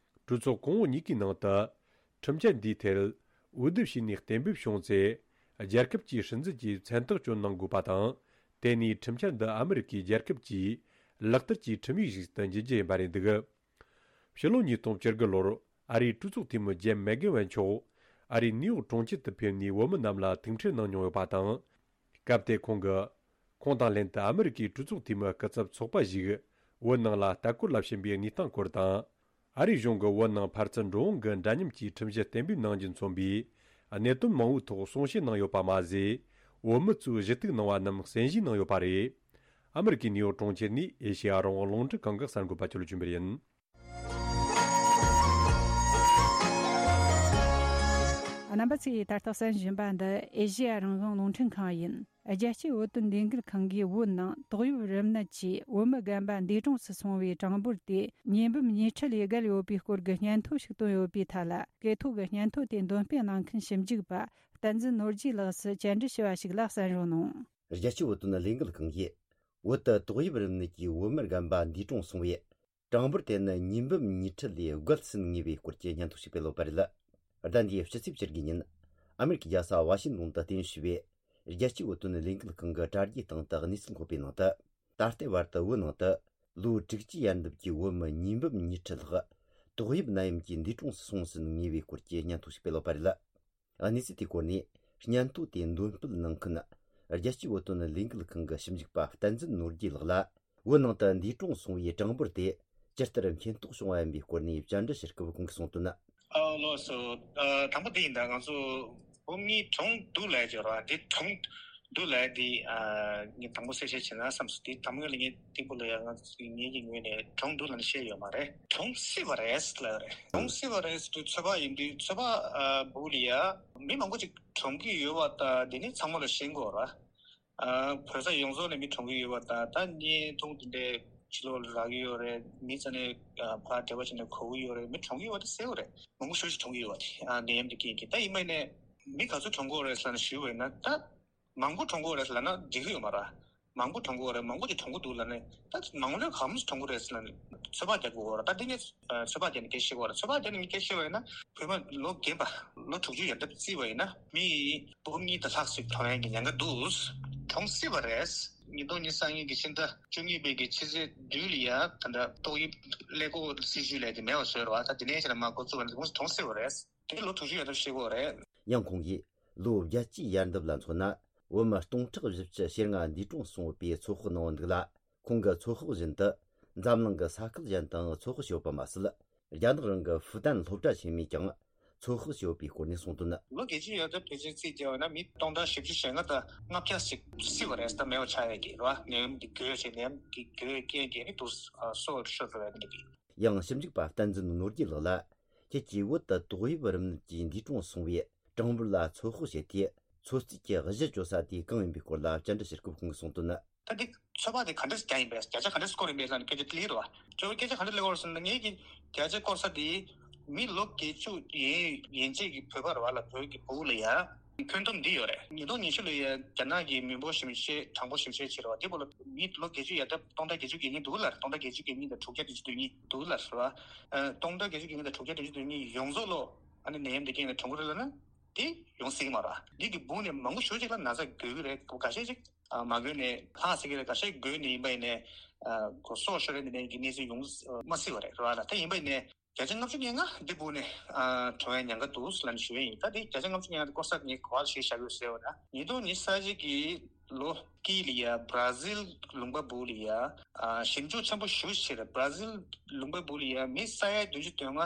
གྲོས་ཚོགས་གོང་འོག་གཉིས་ཀའི་ནང་དུ་ཁྲིམས་འཆར་འདིའི་ཐད་འོས་བསྡུ་བྱས་ནས་གཏན་འབེབས་བྱུང་ཚེ། རྒྱལ་ཁབ་ཀྱིས་སྲིད་འཛིན་གྱི་མཚན་རྟགས་སྐྱོན་གནང་དགོས་པ་དང་། དེ་ནས་ཁྲིམས་འཆར་འདི་ཨ་མི་རི་ཀའི་རྒྱལ་ཁབ་ཀྱིས་ལག་བསྟར་གྱི་ཁྲིམས་ཡིག་ཞིག་ཏུ་འགྱུར་རྒྱུ་ཡིན་པ་རེད་འདུག། ཕྱི་ལོ་ཉིས་སྟོང་བཅུ་དགུ་ལོར་ཨ་རིའི་གྲོས་ཚོགས་འཐུས་མི་ཇེམ་མེག་གྷོ་ཝན་མཆོག་ཨ་རིའི་ནིའུ་ཡོག་གྲོང་ཁྱེར་དུ་ཕེབས་ནས་བོད་མི་རྣམས་ལ་ཐུག་འཕྲད་གནང་མྱོང་ཡོད་པ་དང་། སྐབས་དེར་ཁོང་གིས། ཁོང་དང་ལྷན་དུ་ཨ་མི་རི་ཀའི་གྲོས་ཚོགས་འཐུས་མི་སྐུ་ཚབ་ཚོགས་པ་ཞིག་བོད་ནང་ལ་ལྟ་སྐོར་ལ་ཕྱིན་པའི་གནས་སྟངས་སྐོར་དང་། ཨ་རིའི་གཞུང་གིས་བོད་ནང་ཕར་ཚུར་འགྲོ་འོང་གི་འདྲ་མཉམ་གྱི་ཁྲིམས་གཞི་གཏན་འབེབས་གནང་རྒྱུ་མཚོན་པའི་གནད་དོན་མང་བོའི་ཐོག་གསུང་བཤད་གནང་ཡོད་པ་མ་ཟད། བོད་མི་ཚོས་ཞུ་གཏུག་གནང་བ་རྣམས་གསན་བཞེས་གནང་ཡོད་པ་རེད། ཨ་མི་རི་ཀའི་ནིའུ་ཡོག་གྲོང་ཁྱེར་ནས་ཨེ་ཤེ་ཡ་རང་དབང་རླུང་འཕྲིན་ཁང་གི་གསར་འགོད་པ་ཆོས་ལ་ཆོས་འཕེལ་ཡིན། རྣམ་པ་ཚོས་ད་ལྟ་གསན་བཞིན་པ་འདི་ཨེ་ཤེ་ཡ་རང་དབང་རླུང་འཕྲིན་ཁང་ཡིན། རྒྱལ་སྤྱིའི་བོད་དོན་ལས་འགུལ་ཁང་གིས་བོད་ནང་ཏོག་དབྱིབས་རིམས་ནད་ཀྱིས་བོད་མི་རྒན་པ་འདས་གྲོངས་སུ་སོང་བའི་གྲངས་འབོར་དེ་ཉིས་འབུམ་ཉིས་ཁྲི་ལས་བརྒལ་ཡོད་པའི་སྐོར་གྱི་སྙན་ཐོ་ཞིག་བཏོན་ཡོད་པའི་ཐད་ལ། སྐད་ཐོག་གི་སྙན་ཐོ་དེ་འདོན་སྤེལ་གནང་མཁན་ཞིབ་འཇུག་པ་བསྟན་འཛིན་ནོར་རྒྱས་ལགས་སུ་བཅར་འདྲི་ཞུས་པ་ཞིག་ལ་གསན་རོགས་གནང་། རྒྱལ་སྤྱིའི་བོད་དོན་ལས་འགུལ་ཁང་གིས་བོད་དུ་ཏོག་དབྱིབས་རིམས་ནད་ཀྱིས་བོད་མི་རྒན་པ་འདས་གྲོངས་སོང་བའི་གྲངས་འབོར་དེ་ནི་ཉིས་འབུམ་ཉིས་ཁྲི་ལས་བརྒལ་ཟིན་ངེས་པའི་སྐོར་གྱི་སྙན་ཐོ་ཞིག་སྤེལ་ཡོད་པ་རེད། ཟླ་འདིའི་སྤྱི་ཚེས་བཅུ་དགུ་ཉིན། ཨ་མེ་རི་ཁའི་རྒྱལ་ས་ཝ་ཤིང་ཏོན་དུ་རྟེན་གཞི་བྱས་པའི་རྒྱལ་སྤྱིའི་བོད་དོན་ལས་འགུལ་ཁང་གི་དྲ་རྒྱའི་སྟེང་དུ་གནས་ཚུལ་འཁོད་པའི་ནང་དུ། ད་ལྟའི་བར་དུ་བོད་ནང་དུ་ལོ་དྲུག་ཅུའི་ཡན་འདབ་ཀྱི་བོད་མི་ཉིས་འབུམ་ཉིས་ཁྲི་ལྷག་ཏོག་དབྱིབས་ནད་ཡམས་ཀྱིས་འདས་གྲོངས་སུ་སོང་ཟིན་ངེས་པའི་སྐོར་གྱི་སྙན་ཐོ་ཞིག་སྤེལ་ཡོད་པ་རེད། གནས་ཚུལ་དེའི་སྐོར་ནས་སྙན་ཐོ་དེ་འདོན་སྤེལ་གནང་མཁན་རྒྱལ་སྤྱིའི་བོད་དོན་ལས་འགུལ་ཁང་གི་ཞིབ་འཇུག་པ་བསྟན་འཛིན་ནོར་རྒྱས་ལགས་ལ། བོད་ནང་དུ་འདས་གྲོངས་སོང་བའི་གྲངས་འབོར་དེ་ཇི་ལྟར་མཁྱེན་རྟོགས་བྱུང་བ་ཡིན་པའི་སྐོར་ནས་བཅར་འདྲི་ཞུ་སྐབས་ཁོང་གིས་གསུངས་དོན། ཨ་ལགས་སོ། ཨ་དང་པོ་དེ་ཡིན་ད། ང་ཚོ་བོད་མི་གྲོངས་འདུག་ལབ་ཀྱི་རེད་བ། དེ་གྲོངས་འདུག་ལབ་དེ་ཨ་ངས་དང་པོ་གསལ་བཤད་བྱས་ན་བསམ་སོང་། དེ་དང་པོ་ལ་ངས་སྟེགས་བུ་ལ་ཡང་ང་ཚོ་ངེད་ཀྱི་ངོས་ནས་གྲོངས་འདུག་ལབ་ནས་བཤད་ཡོད་མ་རེད། གྲོངས་སྲིད་པ་རེད་ལབ་རེད། གྲོངས་སྲིད་པ་རེད་ཟེར་དུས་ཚོད་དཔག་ཡིན་དུས་ཚོད་དཔག་ཨ་བུ་ལ་ཡ་མི་མང་པོ་ཅིག་གྲོངས་ཀྱི་ཡོད་པ་ད་དེ་ནི་ཚང་མ་ལ་ཤེས་དགོས་རེད། ཨ་བོད་ས་ཡོངས་རྫོགས་ནས་མི་གྲོངས་ཀྱི་ཡོད་པ་དང་། ད་བརྙན་ཐུང་དེ་འདྲའི་ཕྱི་ལོགས་ལ་རག་གི་ཡོད་རེད། མི་ཚོ་ནས་ཨ་ཕར་འབྲེལ་བ་བྱས་ནས་གོ་གི་ཡོད་རེད། མི་གྲོངས་ཀྱི་ཡོད་པ་དེ་གསལ་པོ་རེད། མང་པོ་ཞེ་པོ་ཅིག་གྲོངས་ཀྱི་ཡོད་པ་དེ་ཨ་ནད་ཡམས་དེ་རྐྱེན་གྱིས། ད་ཡིན་པ་ཡིན་ནའི་མི་ག་ཚོད་གྲོངས་ཀྱི་ཡོད་རེད་ཟེར་ནས་ཞུས་པ་ཡིན་ན། ད་མང་པོ་གྲོངས་ཀྱི་ཡོད་རེད་ཟེར་ལབ་ན་འགྲིག་གི་ཡོད་མ་རེད། མང་པོ་གྲོངས་ཀྱི་ཡོད་རེད། མང་པོ་ཅིག་གྲོངས་ཀྱི་འདུག་ལབ་ནས། ད་མང་ལོས་ག་མོ་ཞིག་གྲོངས་ཀྱི་རེད་ཟེར་ལབ་ནས་ཚོད་དཔག་རྒྱག་དགོས་རེད། ད་འདི་ངས་ཚོད་དཔག་རྒྱག་ནས་སྐད་ཆ་བཤད་དགོས་རེད། ཚོད་དཔག་རྒྱག་ནས་ངས་སྐད་ཆ་བཤད་པ་ཡིན་ན། བོད་པ་ལོ་རྒན་པ་ལོ་དྲུག་ཅུ་ཡར་འདབ་བརྩིས་པ་ཡིན་ན་མི་འབུམ་གཉིས་དང་ལྷག་ཞིག་གྲོངས་ཡག་གི་ཉེན་ཁ་འདུག་གྲོངས་སྲིད་པ་རེད། ཉིས་སྟོང་ཉི་ཤུ་རྩ་གཉིས་ཀྱི་ཕྱི་ཟླ་བཅུ་གཉིས་པའི་གི་ཕྱི་ཚེས་བདུན་ལ་ཡ་ད་ལྟ་ཏོག་དབྱིབས་ཀླད་ཀོར་སྲིད་ཇུས་ལས་དེ་མེད་པ་བཟོས་རེད་བ། ད་དེ་ནས་བྱས་ན་མར་འགོ་བཙུགས་པ་ཡིན་ན་དེ་གོང་ཞིག་གྲོངས་སྲིད་པ་རེད། དེ་ལོ་དྲུག་ཅུ་ཡར་འདབ་བཤད་དགོས་རེད། ཡང་ཁོང་གིས་ལོ་བརྒྱད་ཅུའི་ཡར་འདབ་ལ་མཚོན་ན། བོད་མི་སྟོང་ཕྲག་བཞི་བཅུ་ཞེ་ལྔ་འདས་གྲོངས་སོང་ཡོད་པའི་ཚོད་དཔག་གནང་བ་འདུག་ལ། ཁོང་གི་ཚོད་དཔག་བཞིན་དུ་འཛམ་གླིང་གི་ས་ཁུལ་གཞན་དང་ཚོད་དཔག་བྱས་ཡོད་པ་མ་ཟད། རྒྱ་ནག་རང་གི་ཧྥུ་ཏན་སློབ་གྲྭ་ཆེན་མོས་ཀྱང་ཚོད་དཔག་བྱས་ཡོད་པའི་སྐོར་ནས་གསུངས་དོན། ལོ་བརྒྱད་ཅུ་ཡར་འདབ་ཕལ་ཆེར་རྩིས་བརྒྱབ་པ་ན་མི་སྟོང་ཕྲག་བཞི་བཅུ་ཞེ་ལྔ་དང་ལྔ་བརྒྱ་ཞིག་སྲིད་པ་རེད། ད་མེད་པ་ཆགས་ཡག་གི་རེད་བ། ནད་ཡམས་འདི་འགོས་བྱས་ནད་ཡམས་འདི་འགོས་རྐྱེན་གྱིས་ནི་དུ་སྲོག་ཤོར་འགྲོ་ཡག་འདི་གི། ཡང་ཞིབ་འཇུག་པ་བསྟན་འཛིན་ནོར་རྒྱས་ལགས་ལ། ཁྱེད་ཀྱིས་བོད་དུ་ཏོག་དབྱིབས་རིམས་ནད་ཀྱིས་འདས་གྲོངས་སོང་བའི་གྲངས་འབོར་ལ་ཚོད་དཔག་བྱེད་དུས། ཚོད་རྩིས་ཀྱི་གཞི་བཅོལ་ས་དེ་གང་ཡིན་པའི་སྐོར་ལ་བཅར་འདྲི་ཞུ་སྐབས་ཁོང་གིས་གསུངས་དོན། ད་འདི་ཚོད་དཔག་དེ་ག་འདྲ་ཞིག་རྒྱག་ཡིན་པས། བརྒྱ་ཆ་ག་འདྲ་ཞིག་སྐོར་ཡིན་པས་ལབ་ནས་སྐད་ཆ་དེ་སླེབས་རེད་བ། ཁྱོད་སྐད་ཆ་ག་འདྲ་སླེབས་པ་རེད་ཟེར་ན། ངེད་ཀྱི་བརྒྱ་ཆ་སྐོར་ས་དེ་མི་ལོ་བརྒྱད་ཅུ་ཡན་ཡན་ཆད་ཀྱི་བོད་པ་རེད་བ་ལ། བོད་ཀྱི་ཕྲུ་གུ་ལ་ཡ་ཁྱོན་བསྡོམས་འདི་ཡོད་རེད། ཉིས་སྟོང་ཉི་ཤུ་ལ་ཡ་རྒྱ་ནག་གི་མི་འབོར་ཞིབ་དཔྱད་གྲངས་འབོར་ཞིབ་དཔྱད་བྱས་རེད་བ། དེ་བོད་ལ་མི་ལོ་བརྒྱད་ཅུ་ཡར་འདབ་སྟོང་ཕྲག་བརྒྱད་ཅུ་གྱ་གཉིས་འདུག་ལབ་རེད། སྟོང་ཕྲག་བརྒྱད་ཅུ་གྱ་གཉིས་དང་དྲུག་བརྒྱ་བདུན་ཅུ་དོན་གཉིས་འདུག་ལབ་རེད་བ། ཨ་སྟོང་ཕྲག་བརྒྱད་ཅུ་གྱ་གཉིས་དང་དྲུག་བརྒྱ་བདུན་ཅུ་དོན་གཉིས་ཡོངས་རྫོགས་ལོ་ཨ་ནི་ནད་ཡམས་འདི་རྐྱེན་གྱིས་གྲོངས་ཀྱི་རེད་ལབ་ན། དེ་ཡོང་སྲིད་ཀྱི་མ་རེད། འདི་གི་སྦུག་ནས་མང་པོ་ཞེ་ཅིག་ལ་ན་ཚ་འགོས་ཀྱི་རེད། ཁག་ཤས་ཅིག་ཨ་མ་འགོས་ནས་ལྷག་སྲིད་ཀྱི་རེད། ཁག་ཤས་འགོས་ནས་ཡིན་པ་ཡིན་ནའི་ཨ་གོ་སྲོག་ཤོར་ཡག་འདི་ནས་ཀྱི་གནས་ཚུལ་ཡོང་མ་སྲིད་པ་རེད། རེད་བ་ལ། ད་ཡིན་པ་ཡིན་ནའི་བརྒྱ་ཆ་ལྔ་བཅུ་ང་ལྔ་འདི་སྦུག་ནས་ཨ་གྲོངས་ཡག་ཉེན་ཁ་འདུག་ལབ་ནས་ཞུ་ཡག་ཡིན། ད་འདི་བརྒྱ་ཆ་ལྔ་བཅུ་ང་ལྔ་འདི་སྐོར་ས་ངས་ག་པར་ལ་གཞི་བཞག་ཡོད་ཟེར་བ་ན། ཉིས་སྟོང་ཉི་ཤུ་རྩ་གཅིག་གི་ལོ་དཀྱིལ་ལ་ཡ་བར་ཛིལ་ལུང་པ་སྦུག་ལ་ཡ་ཨ་ཞིབ་འཇུག་ཆེན་པོ་ཞེ་པོ་ཅིག་བྱས་རེད། བར་ཛིལ་ལུང་པ་སྦུག་ལ་ཡ་མི་ས་ཡ་བདུན་ཅུ་དོན་ལྔ་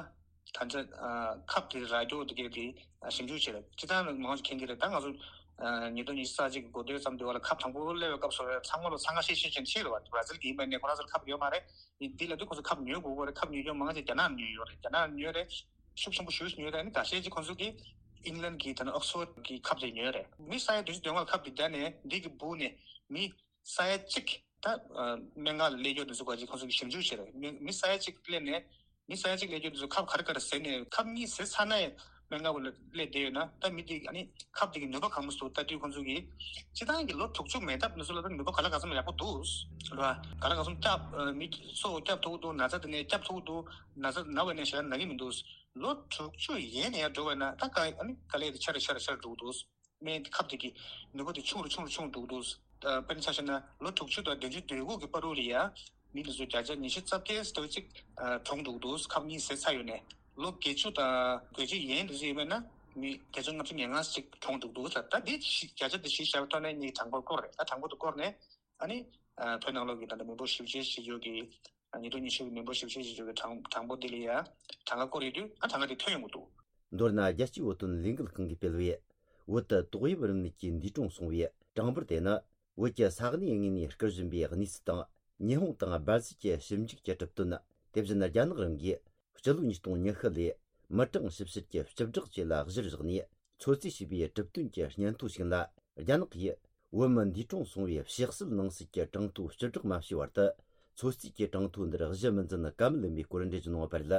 ད་ཆ་ཨ་ཁབ་དེ་ར་རྒྱོ་དེ་གས་དེ་ཨ་ཞིབ་འཇུག་བྱས་རེད། སྤྱིར་བཏང་མང་ཆེ་མཁྱེན་གྱི་རེད། ད་ང་ཚོ་ཨ་ཉིས་སྟོང་ཉི་ཤུ་རྩ་གཅིག་གི་འགོ་སྟོད་ཙམ་དུས་བ་ལ་ཁབ་དང་པོ་སླེབས་པའི་སྐབས་སུ་ཚང་མ་ལ་འཚང་ཁ་ཤིག་ཤིག་བྱས་ནས་ཕྱིན་རེད་བ། བར་ཛིལ་གྱི་ཡིན་པ་ནས་ཁོ་རང་ཚོར་ཁབ་ཡོད་མ་རེད། འདི་ལབ་དུས་ཁོ་ཚོ་ཁབ་ཉོ་དགོས་ཀྱི་རེད། ཁབ་ཉོ་རྒྱུ་མང་ཆེ་རྒྱ་ནག་ཉོས་ཡོད་རེད། རྒྱ་ནག་ཉོས་རེད། ཤུགས་ཆེན་པོ་ཞེ་པོ་ཉོས་རེད། ཨ་ནི་ཁ་ཤས་ཅིག་ཁོ་ཚོ་གིས་ཨིང་ལན་གྱི་ད་ནི་ཨོག་སི་ཕོར་གྱི་ཁབ་དེ་ཉོས་རེད། མི་ས་ཡ་བདུན་ཅུ་དོན་ལྔ་ཁབ་དེ་བརྒྱབ་ནས་འདི་གི་སྦུག་ནས་མི་ས་ཡ་གཅིག་ད་ཨ་སྨན་ཁང་ལ་སླེབས་རྒྱུ་དེ་ཚོ་ག་ཅིག་ཁོ་ཚོ་གིས་ཞིབ་འཇུག་བྱས་རེད། མི་མི་ས་ཡ་གཅིག་སླེབས་ནས་མི་ས་ཡ་གཅིག་སླེབས་རྒྱུ་དེ་ཚོ་ཁབ་ག་རེ་ག་རེ་ཟས་ནས་ཁབ་གཉིས་ཟས་ཚར་ན་ཡང་སྨན་ཁང་ལ་སླེབས་བསྡད་ཡོད་ན། ད་མི་དེ་ཨ་ནི་ཁབ་དེ་གི་ནུས་པ་གང་མོ་ཞིག་འདུག་ལྟ་དུས་ཁོ་ཚོ་གིས་སྤྱིར་བཏང་གི་ལོ་དྲུག་ཅུ་མན་འདབས་ནས་ཚུར་ལ་ད་ནུས་པ་ག་ལ་ག་ཚོད་ཡག་པོ་འདུག་རེད་བ། ག་ལ་ག་ཚོད་སྐྱོབ་ཨ་མི་སྲོག་སྐྱོབ་ཐུབ་ཀྱི་འདུག་ན་ཚ་དེ་ནས་སྐྱོབ་ཐུབ་ཀྱི་འདུག་ན་ཚ་ན་བ་ནས་ཞེ་དྲག་ན་གི་མི་འདུག་ལོ་དྲུག་ཅུ་ཡན་ནས་ཡར་འགྲོ་བ་ན་ད་ག་ཨ་ནི་ག་ལེར་དེ་ཆེ་རུ་ཆེ་རུ་ཆེ་རུ་འགྲོ་གི་འདུག་སྨན་ཁབ་དེ་གི་ནུས་པ་དེ་ཆུང་རུ་ཆུང་རུ་ཆུང་རུ་འགྲོ་གི་འདུག་ཨ་དཔེར་ན་ཆ་བཞག་ན་ལོ་དྲུག་ཅུ་དང་བདུན་ཅུ་དོན་དགུ་གི་བར་དུ་ལ་ཡ་མི་དེ་ཚོ་བརྒྱ་ཆ་ཉི་ཤུ་རྩ་བརྒྱད་ཙམ་ཅིག་ཨ་གྲོངས་འགྲོ་གི་འདུག་ཁབ་གཉིས་ཟས་ཚར་ཡོད་ནས། ལོ་བརྒྱད་ཅུ་དང་དགུ་བཅུ་ཡན་དེ་ཚོ་ཡིན་པ་ན་མི་བརྒྱ་ཆ་ལྔ་བཅུ་ང་ལྔ་ཅིག་གྲོངས་འགྲོ་གི་འདུག་ད་ད་དེ་བཞི་བརྒྱ་ཆ་དེ་བཞི་བཞག་པའི་ཐོག་ནས་ངས་གྲངས་འབོར་བསྐོར་རེད། ད་གྲངས་འབོར་དེ་བསྐོར་ནས་ཨ་ནི་ཨ་བོད་ནང་ལོགས་ཀྱི་ད་ལྟ་མི་འབོར་ཞིབ་དཔྱད་བྱེད་ཕྱོགས་ཀྱི་ཉིས་སྟོང་ཉི་ཤུ་གི་མི་འབོར་ཞིབ་དཔྱད་བྱེད་ཕྱོགས་ཀྱི་གྲངས་གྲངས་འབོར་འདི་ལ་ཡ་གྲངས་ཀ་བསྐོར་ཡོད་དུས། ཨ་གྲངས་ཀ་དེ་ཐོན་ཡོང་གི་འདུག་མདོར་ན་རྒྱལ་སྤྱིའི་བོད་དོན་ལས་འགུལ་ཁང་གིས་སྤེལ་བའི་བོད་དུ་ཏོག་དབྱིབས་རིམས་ནད་ཀྱིས་འདས་གྲོངས་སོང་བའི་གྲངས་འབོར་དེ་ནི། བོད་ཀྱི་ས་གནས་དངོས་ནས་སྐུར་བཞེངས་པའི་གནས་ཚུལ་དང་། ཉི་ཧོང་དང་སྦར་ཟིལ་གྱི་ཞིབ་འཇུག་གི་གྲུབ་དོན། དེ་བཞིན་རྒྱ་ནག་རང་གིས་སྤྱི་ལོ་ཉིས་སྟོང་ཉི་ཤུ་ལོའི་མི་གྲངས་ཞིབ་བཤེར་གྱི་སྤྱི་བསྒྲགས་བཅས་ལ་གཞིར་བཞག་ནས། ཚོད་རྩིས་བྱས་པའི་གྲུབ་དོན་གྱི་སྙན་ཐོ་ཞིག་ལ། རྒྱ་ནག་གིས་བོད་མི་འདས་གྲོངས་སོང་བའི་ཕྱག་སྲོལ་ནང་གསལ་གྱི་གྲངས་ཐོ་སྤྱི་བསྒྲགས་མ་བྱས་བར་དུ། ཚོད་རྩིས་ཀྱི་གྲངས་ཐོ་འདིར་གཞི་མི་འཛིན་ཀ་མེད་ལམ་པའི་སྐོར་འགྲེལ་བརྗོད་གནང་བ་རེད།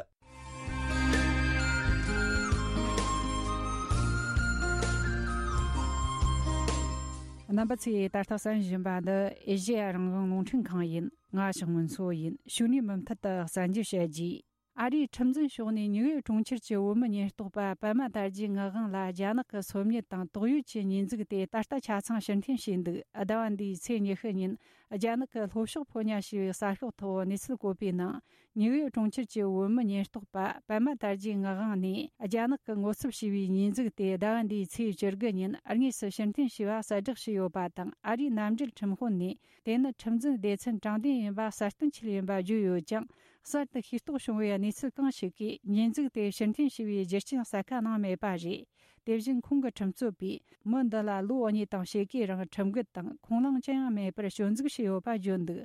རྣམ་པ་ཚོས་ད་ལྟ་གསན་བཞིན་པ་འདི་ཨེ་ཤེ་ཡ་རང་དབང་རླུང་འཕྲིན་ཁང་ཡིན། ང་ཞག་སྔོན་འཚོ་ཡིན། ཕྱི་ནས་མུ་མཐུད་དུ་གསན་རྒྱུ་བྱ་རྒྱུ། ཨ་རིའི་ཁྲིམས་འཛིན་ཕྱོགས་ནས་ནིའུ་ཡོག་གྲོང་ཁྱེར་གྱི་བོད་མི་ཉེན་རྟོག་པ་པད་མ་དར་རྒྱས་ངག་དབང་ལ་རྒྱ་ནག་གི་སོ་ཉུལ་དང་དོགས་ཡོད་ཀྱི་ཉེས་འཛུགས་དེ་ད་ལྟ་ཆ་ཚང་ཕྱིར་འཐེན་བྱས་འདུག་ཟླ་བ་འདིའི་ཚེས་ཉི་ཤུ་ཉིན་རྒྱ་ནག་གི་ལྷོ་ཕྱོགས་ཕོ་ཉ་ཞེས་པའི་གསར་ཤོག་ཐོག་གནས་ཚུལ་བཀོད་པའི་ནང་། ནིའུ་ཡོག་གྲོང་ཁྱེར་གྱི་བོད་མི་ཉེན་རྟོག་པ་པད་མ་དར་རྒྱས་ངག་དབང་ནས་རྒྱ་ནག་གི་ངོ་ཚབ་བྱས་པའི་ཉེས་འཛུགས་དེ་ཟླ་བ་འདིའི་ཚེས་བཅུ་དགུ་ཉིན་དངོས་སུ་ཕྱིར་འཐེན་བྱས་པ་གསལ་བསྒྲགས་བྱས་ཡོད་པ་དང་། ཨ་རིའི་མནའ་འབྲེལ་ཁྲིམས་དཔོན་ནས། དེ་ནི་ཁྲིམས་འཛིན་སྡེ་ཚན་དྲང་བདེན་ཡིན་པ་གསལ་སྟོན་བྱས་ཡིན་པ་བརྗོད་ཡོད་ཀྱང་། གསར་དུ་ཤེས་རྟོགས་བྱུང་བའི་གནས་ཚུལ་གང་ཞིག་གིས་ཉེས་འཛུགས་དེ་ཕྱིར་འཐེན་བྱས་པའི་རྒྱུ་རྐྱེན་གསལ་ཁ་གནང་མེད་པ་རེད། དེ་བཞིན་ཁོང་གི་ཁྲིམས་རྩོད་པས་མི་འདི་ལ་ལོ་གཉིས་དང་ཕྱེད་ཀའི་རིང་ཁྲིམས་འགལ་དང་ཁུངས་ལུང་ཅི་ཡང་མེད་པར་སྐྱོན་འཛུགས་བྱས་ཡོད་པ་བརྗོད་འདུག་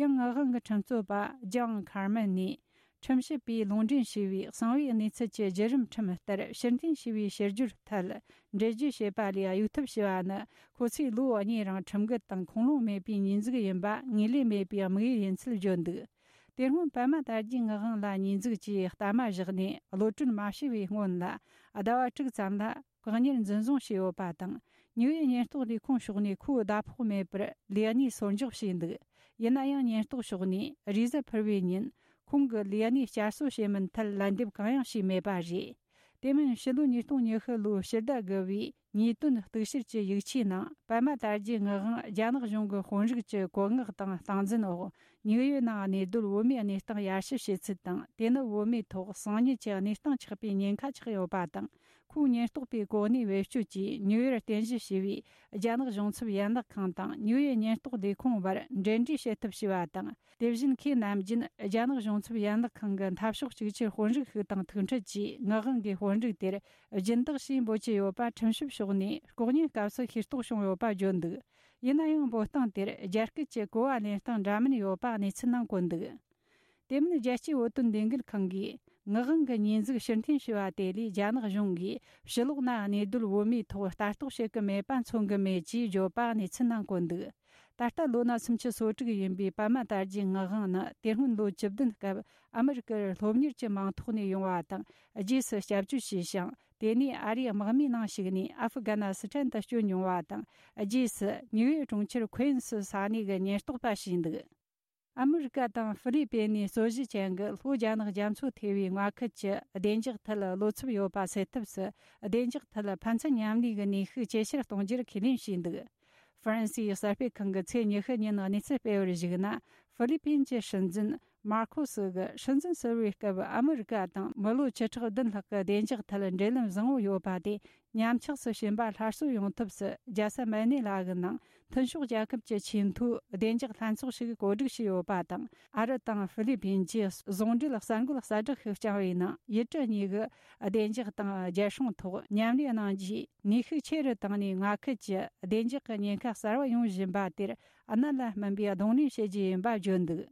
ཡང་ངག་དབང་གི་ཁྲིམས་རྩོད་པ་ལྗང་ཁར་མན་ནས། ཁྲིམས་ཞིབ་པས་ལུང་འདྲེན་བྱས་པའི་གསང་བའི་གནས་ཚུལ་གྱི་བརྒྱུད་རིམ་ཁྲིམས་ལྟར་ཕྱིར་འཐེན་བྱས་པའི་ཕྱིར་བསྒྱུར་ཐད་འགྲེལ་བརྗོད་བྱས་པ་ལས་གཡོལ་ཐབས་བྱས་པ་ནི། ཁོ་ཚོས་ལོ་གཉིས་རིང་ཁྲིམས་འགལ་དང་ཁུངས་ལུང་མེད་པའི་ཉེས་འཛུགས་ཡིན་པ་ངེས་ལེགས་མེད་པའི་དམིགས་ཡུལ་ཡིན་ཚུལ་བརྗོད་འདུག་དེ་སྔོན་པད་མ་དར་རྒྱས་ངག་དབང་ལ་ཉེས་འཛུགས་ཀྱིས་གཏའ་མ་བཞག་ནས་གློད་གྲོལ་མ་བྱས་པའི་སྔོན་ལ། ཟླ་བ་དྲུག་ཙམ་ལ་བཀག་ཉར་འཛིན་བཟུང་བྱས་ཡོད་པ་དང་། ནིའུ་ཡོག་ཉེན་རྟོག་ལས་ཁུངས་ཕྱོགས་ནས་ཁོའི་ཟླ་ཕོགས་མེད་པར་ལས་གནས་སོར་འཇོག་བྱས་འདུག་ཡིན་ན་ཡང་ཉེན་རྟོག་ཕྱོགས་ནས་རེས་གཟའ་ཕུར་བུའི་ཉིན་ཁོང་གི་ལས་གནས་བསྐྱར་གསོ་བྱེད་མིན་ཐད་ལན་འདེབས་གང་ཡང་བྱས་མེད་པ་རེད། དེ་མིན་ཕྱི་ལོ་ཉིས་སྟོང་ཉི་ཤུ་ལོའི་ཕྱི་ཟླ་དགུ་བའི་ཉེས་དོན་གཏུག་བཤེར་གྱི་ཡིག་ཆའི་ནང་། པད་མ་དར་རྒྱས་ངག་དབང་རྒྱ་ནག་གཞུང་གི་དཔོན་རིགས་ཀྱི་བཀོད་མངགས་དང་སྟངས་འཛིན་འོག་ནིའུ་ཡོག་ནང་གནས་སྡོད་བོད་མིའི་གནས་སྟངས་ཡར་ཞུ་བྱེད་ཚུལ་དང་། དེ་ནི་བོད་མིའི་ཐོག་གསང་ཉུལ་གྱི་གནས་སྟངས་ཆགས་པའི་ཉེན་ཁ་ཆགས་ཡོད་པ་དང་། ཁོའི་ཉེན་རྟོག་པའི་གོ་གནས་བེད་སྤྱོད་ཀྱིས་ནིའུ་ཡོག་རྟེན་གཞི་བྱས་པའི་རྒྱ་ནག་གཞུང་ཚབ་ཡན་ལག་ཁང་དང་ནིའུ་ཡོག་ཉེན་རྟོག་ལས་ཁུངས་བར་འབྲེལ་འདྲིས་བྱེད་ཐབས་བྱས་པ་དང་། དེ་བཞིན་ཁོས་ནམ་རྒྱུན་རྒྱ་ནག་གཞུང་ཚབ་ཡན་ལག་ཁང་གི་འཐབ་ཕྱོགས་གཅིག་གྱུར་དཔོན་རིགས་ཤིག་དང་ཐུག་འཕྲད་ཀྱིས་ངག་དབང་གི་དཔོན་རིགས་དེར་སྦྱིན་བདག་ཞེས་འབོད་ཀྱི་ཡོད་པ་ཁྲིམས་ཞིབ་ཕྱོགས་ནས་ལྐོག་ཉན་སྐབས་སུ་ཤེས་རྟོགས་བྱུང་ཡོད་པ་བརྗོད་འདུག་ཡིན་ན་ཡང་འབོད་སྟངས་དེར་རྒྱ་སྐད་ཀྱི་གོ་བ་ལེན་སྟངས་འདྲ་མིན་ཡོད་པ་གནས་ཚུལ་ནང་བཀོད་འདུག་དེ་མིན་རྒྱལ་སྤྱིའི་བོད་དོན་ལས་འགུལ་ཁང་གིས་ངག་དབང་གི་ཉེས་འཛུགས་ཕྱིར་འཐེན་ཞུས་པ་དེ་ལས་རྒྱ་ནག་གཞུང་གིས་ཕྱི་ལོགས་ན་གནས་སྡོད་བོད་མིའི་ཐོག་ལྟ་རྟོག་བྱེད་ཀྱི་མེད་པ་མཚོན་གྱི་མེད་ཅེས་བརྗོད་པ་གནས་ཚུལ་ནང་བཀོད་འདུག་ད་ལྟ་ལོ་ན་སུམ་ཅུ་སོ་དྲུག་ཡིན་པའི་པད་མ་དར་རྒྱས་ངག་དབང་ནི་དེ་སྔོན་ལོ་བཅུ་བདུན་སྐབས་ཨ་མི་རི་ཀར་སློབ་གཉེར་གྱི་མིང་ཐོག་ནས་ཡོང་བ་དང་། རྗེས་སུ་སྐྱབས་བཅོལ་བྱས་ཤིང་། དེ་ནས་ཨ་རིའི་དམག་མིའི་ནང་ཞུགས་ནས་ཨ་ཧྥུ་གྷ་ན་སི་ཐན་དུ་བསྐྱོད་མྱོང་བ་དང་། རྗེས་སུ་ནིའུ་ཡོག་གྲོང་ཁྱེར་ཁུ་ཨིན་སི་ས་གནས་ཀྱི་ཉེན་རྟོག་པ་བྱས་འདུག་ཨ་མི་རི་ཀ་དང་ཧྥི་ལི་པིན་ནས་རྩོད་གཞི་ཅན་གྱི་ལྷོ་རྒྱ་ནག་རྒྱ་མཚོ་ཐེ་བའི་མངའ་ཁུལ་གྱི་བདེ་འཇགས་ཐད་བློ་འཚབ་ཡོད་པ་སེལ་ཐབས་སུ། བདེ་འཇགས་ཐད་ཕན་ཚུན་མཉམ་ལས་ཀྱི་ནུས་ཤུགས་ཇེ་ཆེར་གཏོང་རྒྱུར་ཁས་ལེན་བྱས་འདུག་ཧྥ་རན་སིའི་གསར་སྤེལ་ཁང་གིས་ཚེས་ཉི་ཤུ་ཉིན་གནས་ཚུལ་སྤེལ་བར་གཞིགས་ན། ཧྥི་ལི་པིན་གྱི་སྲིད་འཛིན་མར་ཁོ་སི་གིས་སྲིད་འཛིན་ཟུར་པའི་སྐབས་ཨ་མི་རི་ཀ་དང་མི་ལོ་བཅུ་ཕྲག་བདུན་ལྷག་གི་བདེ་འཇགས་ཐད་འབྲེལ་ལམ་བཟང་བོ་ཡོད་པ་དེ། ཉམས་ཆག་སུ་ཕྱིན་པ་སླར་གསོ་ཡོང་ཐབས་སུ། རྒྱལ་ས་མན་ནེ་ལ་གི་ནང་མཐུན་ཕྱོགས་རྒྱལ་ཁབ་ཀྱི་ཆེས་མཐོའི་བདེ་འཇགས་ལྷན་ཚོགས་ཤིག་གོ་སྒྲིག་བྱས་ཡོད་པ་དང་། ཨ་རི་དང་ཧྥི་ལི་པིན་གྱིས་ཟུང་འབྲེལ་གསར་འགོད་གསལ་བསྒྲགས་ཤིག་བསྐྱངས་པའི་ནང་། ཡུལ་གྲུ་གཉིས་ཀྱི་བདེ་འཇགས་དང་རྒྱལ་སྲུང་ཐོག་མཉམ་ལས་གནང་རྒྱུའི་ནུས་ཤུགས་ཆེ་རུ་བཏང་ནས། མངའ་ཁུལ་གྱི་བདེ་འཇགས་ཀྱི་ཉེན་ཁ་གསར་བ་ཡོང་བཞིན་པ་དེར་གནད་ལ་སྨིན་པའི་གདོང་ལེན་བྱེད་རྒྱུ་ཡིན་པ་བརྗོད་འདུག་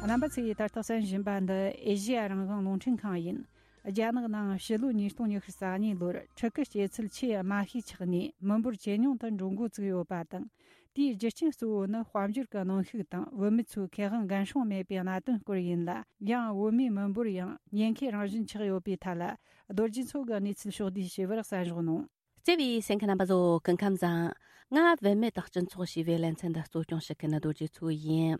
རྣམ་པ་ཚོས་ད་ལྟ་གསན་བཞིན་པ་འདི་ཨེ་ཤེ་ཡ་རང་དབང་རླུང་འཕྲིན་ཁང་ཡིན། རྒྱ་ནག་ནང་ཕྱི་ལོ་ཉིས་སྟོང་ཉི་ཤུ་རྩ་གཉིས་ལོར་ཕྲུ་གུ་སྐྱེ་ཚུལ་ཆེས་དམའ་ཤོས་ཆགས་ནས་མི་འབོར་ཇེ་ཉུང་དུ་འགྲོ་འགོ་བཙུགས་ཡོད་པ་དང་། དེའི་རྒྱུ་རྐྱེན་གཙོ་བོ་ནི་དཔལ་འབྱོར་གྱི་གནོན་ཤུགས་དང་བུད་མེད་ཚོའི་ཁེ་དབང་འགན་སྲུང་མེད་པའི་གནད་དོན་སྐོར་ཡིན་ལ། ཡང་བུད་མེད་མི་འབོར་ཡང་ཉེན་ཁའི་རང་བཞིན་ཆགས་ཡོད་པའི་ཐད་ལ། རྡོ་རྗེ་མཚོ་གི་གནས་ཚུལ་ཕྱོགས་བསྡུས་ཞུས་པར་གསན་རོགས་གནང་། བརྩེ་བའི་གསན་མཁན་རྣམ་པ་ཚོ། སྐུ་ཁམས་བཟང་། ང་བུད་མེད་དང་སྤྱི་ཚོགས་ཞེས་པའི་ལེ་ཚན་འདི་གཙོ་སྐྱོང་བྱེད་མཁན་རྡོ་རྗེ་མཚོ་ཡིན།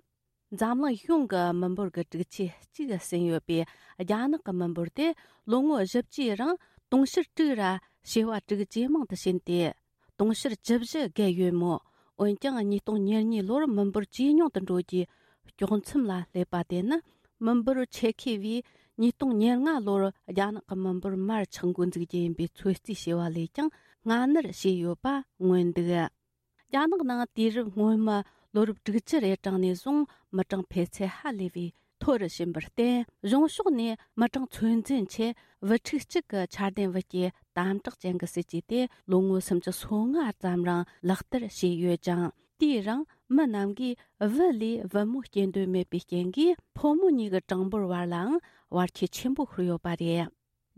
འཛམ་གླིང་གཞུང་གི་མི་འབོར་གྱི་དྲུག་ཅུ་གཅིག་ཟིན་ཡོད་པའི་རྒྱ་ནག་གི་མི་འབོར་དེ་ལོ་ངོ་བཞི་བཅུའི་རིང་དུང་ཕྱུར་དྲུག་ར་བྱེ་བ་དྲུག་ཇེ་མང་དུ་ཕྱིན་ཏེ། དུང་ཕྱུར་བཅུ་བཞི་བརྒལ་ཡོད་མོད། འོན་ཀྱང་ཉིས་སྟོང་ཉེར་གཉིས་ལོར་མི་འབོར་ཇེ་ཉུང་དུ་འགྲོ་རྒྱུའི་དཀྱོག་མཚམས་ལ་སླེབས་པ་དེ་ནི། མི་འབོར་ཆེ་ཁེ་བས་ཉིས་སྟོང་ཉེར་ལྔ་ལོར་རྒྱ་ནག་གི་མི་འབོར་མར་ཆག་འགོ་འཛུགས་རྒྱུ་ཡིན་པའི་ཚོད་རྩིས་བྱས་པ་ལས་ཀྱང་སྔ་སྣུར་བྱས་ཡོད་པ་མངོན་འདུག་རྒྱ་ནག་ནང་དུས་རབས་སྔོན་མའི་ལོ་རབས་དྲུག་ཅུ་རེ་གྲངས་ནས་བཟུང་མི་གྲངས་འཕེལ་ཚད་ཧ་ལས་པའི་མཐོ་རུ་ཕྱིན་པར་བརྟེན། གཞུང་ཕྱོགས་ནས་མི་གྲངས་ཚོད་འཛིན་ཆེད་བུ་ཕྲུག་གཅིག་གི་ཆ་ལྡན་བུ་སྐྱེས་དམ་དྲག་ཅན་གྱི་སྲིད་ཇུས་དེ་ལོ་ངོ་སུམ་ཅུ་སོ་ལྔ་ཙམ་རིང་ལག་བསྟར་བྱས་ཡོད་ཅིང་། དེའི་རིང་མི་རྣམས་ཀྱིས་བུ་ལས་བུ་མོ་སྐྱེ་འདོད་མེད་པའི་རྐྱེན་གྱིས། ཕོ་མོ་གཉིས་ཀྱི་གྲངས་འབོར་བར་ལའང་ བར་ཁྱད་ཆེན་པོ་ཤོར་ཡོད་པ་རེད།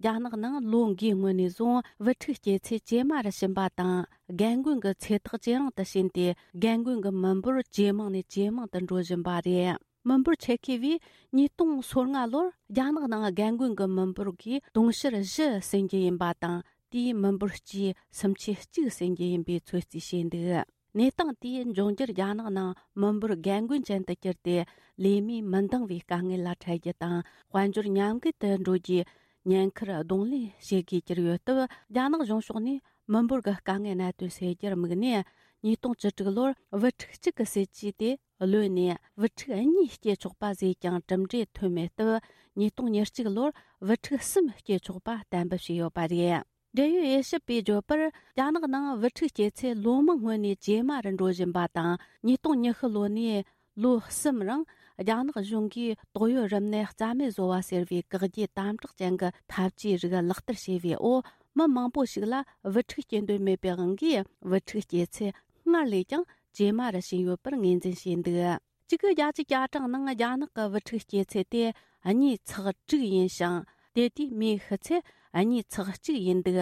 རྒྱ་ནག་ནང་ལོ་འགའི་སྔོན་ནས་བཟུང་བུ་ཕྲུག་སྐྱེས་ཚད་ཇེ་དམའ་རུ་ཕྱིན་པ་དང་། རྒན་རྒོན་གྱི་ཚེ་ཐག་ཇེ་རིང་དུ་ཕྱིན་ཏེ། རྒན་རྒོན་གྱི་མི་འབོར་ཇེ་མང་ནས་ཇེ་མང་དུ་འགྲོ་བཞིན་པ་རེད། མི་འབོར་ཆེད་མཁས་པས་ཉིས་སྟོང་སོ་ལྔ་ལོར་རྒྱ་ནག་ནང་རྒན་རྒོན་གྱི་མི་འབོར་གྱིས་དུང་ཕྱུར་བཞི་ཟིན་རྒྱུ་ཡིན་པ་དང་། དེས་མི་འབོར་སྤྱིའི་སུམ་ཆའི་གཅིག་ཟིན་རྒྱུ་ཡིན་པའི་ཚོད་རྩིས་བྱས་འདུག་གནས་སྟངས་དེས་འབྱུང་འགྱུར་རྒྱ་ནག་ནང་མི་འབོར་རྒན་རྒོན་ཅན་དུ་གྱུར་ཏེ། ལས་མིས་མི་འདང་བའི་དཀའ་ངལ་ལ་འཕྲད་རྒྱུ་དང་། དཔལ་འབྱོར་ཉམས་རྒུད་དུ་འགྲོ་རྒྱུའི་ཉེན་ཁར་གདོང་ལེན་བྱེད་དགོས་ཀྱི་ཡོད་སྟབས། རྒྱ་ནག་གཞུང་ཕྱོགས་ནས་མི་འབོར་གྱི་དཀའ་ངལ་གནད་དོན་སེལ་རྒྱུར་དམིགས་ནས། ཉིས་སྟོང་བཅུ་དྲུག་ལོར་བུ་ཕྲུག་གཅིག་གི་སྲིད་ཇུས་དེ་ལོན་ནས། བུ་ཕྲུག་གཉིས་སྐྱེ་ཆོག་པ་བཟོས་ཀྱང་གྲུབ་འབྲས་ཐོན་མེད་སྟབས། ཉིས་སྟོང་ཉེར་གཅིག་ལོར་བུ་ཕྲུག་གསུམ་སྐྱེ་ཆོག་པ་གཏན་འབེབས་བྱས་ཡོད་པ་རེད། འབྲེལ་ཡོད་དབྱེ་ཞིབ་པས་བརྗོད་པར། རྒྱ་ནག་ནང་བུ་ཕྲུག་སྐྱེས་ཚད་ལོ་མང་སྔོན་ནས་ཇེ་དམའ་རུ་འགྲོ་བཞིན་པ་དང་། ཉིས་སྟོང་ཉི་ཤུ་ལོ་ནས་ལོ་གསུམ་རིང་རྒྱ་ནག་གཞུང་གིས་ཏོག་དབྱིབས་རིམས་ནད་རྩ་མེད་བཟོ་བ་ཟེར་བའི་བཀག་རྒྱའི་དམ་དྲག་ཅན་གྱི་ཐབས་ཇུས་རིགས་ལག་བསྟར་བྱས་པའི་འོག་མི་མང་པོ་ཞིག་ལ་བུ་ཕྲུག་སྐྱེ་འདོད་མེད་པའི་དབང་གིས། བུ་ཕྲུག་སྐྱེས་ཚད་སྔར་ལས་ཀྱང་ཇེ་དམའ་རུ་ཕྱིན་ཡོད་པར་ངོས་འཛིན་བྱས་འདུག་གཅིག་དགུ་བརྒྱད་ཅུ་གྱ་གྲངས་ནང་རྒྱ་ནག་གི་བུ་ཕྲུག་སྐྱེས་ཚད་དེ་གཉིས་ཚེག་དྲུག་ཡིན་ཞིང་། དེ་དུས་མིའི་ཤི་ཚད་གཉིས་ཚེག་གཅིག་ཡིན་འདུག་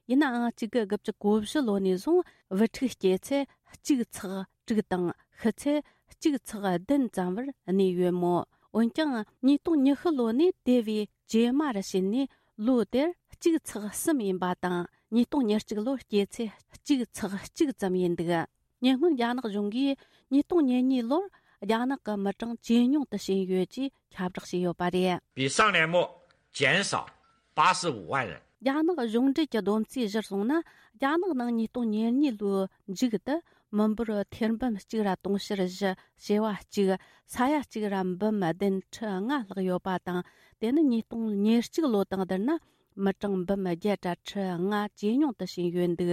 ཡིན་ནའང་གཅིག་དགུ་དགུ་བཅུ་གོ་བཞི་ལོ་ནས་བཟུང་བུ་ཕྲུག་སྐྱེས་ཚད་གཅིག་ཚེག་དྲུག་དང་ཤི་ཚད་གཅིག་ཚེག་བདུན་ཙམ་བར་གནས་ཡོད་མོད། འོན་ཀྱང་ཉིས་སྟོང་ཉི་ཤུ་ལོ་ནས་དེ་བས་ཇེ་དམའ་རུ་ཕྱིན་ནས། ལོ་དེར་གཅིག་ཚེག་གསུམ་ཡིན་པ་དང་། ཉིས་སྟོང་ཉེར་གཅིག་ལོར་སྐྱེས་ཚད་གཅིག་ཚེག་གཅིག་ཙམ་ཡིན་འདུག་ཉེ་སྔོན་རྒྱ་ནག་གཞུང་གིས་ཉིས་སྟོང་ཉེར་གཉིས་ལོར་རྒྱ་ནག་གི་མི་གྲངས་ཇེ་ཉུང་དུ་ཕྱིན་ཡོད་ཅེས་ཁྱབ་བསྒྲགས་བྱས་ཡོད་པ་རེད། 比上年末减少八十五万人。 རྒྱ་ནག་གཞུང་འབྲེལ་གྱི་བསྡོམས་རྩིས་གཞིར་བཟུང་ན། རྒྱ་ནག་ནང་ཉིས་སྟོང་ཉེར་གཉིས་ལོའི་མཇུག་ཏུ་མི་འབོར་ཐེར་འབུམ་གཅིག་ར་དུང་ཕྱུར་བཞི་བྱེ་བ་གཅིག་ས་ཡ་གཅིག་ར་འབུམ་བདུན་ཁྲི་ལྔ་ལྷག་ཡོད་པ་དང་། དེ་ནི་ཉིས་སྟོང་ཉེར་གཅིག་ལོ་དང་བསྡུར་ན་མི་གྲངས་འབུམ་བརྒྱད་དྲུག་ཁྲི་ལྔ་ཇེ་ཉུང་དུ་ཕྱིན་ཡོད་འདུག་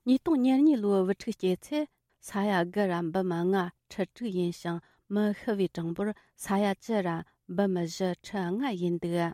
ཉིས་སྟོང་ཉེར་གཉིས་ལོའི་བུ་ཕྲུག་སྐྱེས་ཚད་ས་ཡ་དགུ་ར་འབུམ་ལྔ་ཁྲི་དྲུག་ཡིན་ཞིང་། མི་ཤི་བའི་གྲངས་འབོར་ས་ཡ་བཅུ་ར་འབུམ་བཞི་ཁྲི་ལྔ་ཡིན་འདུག་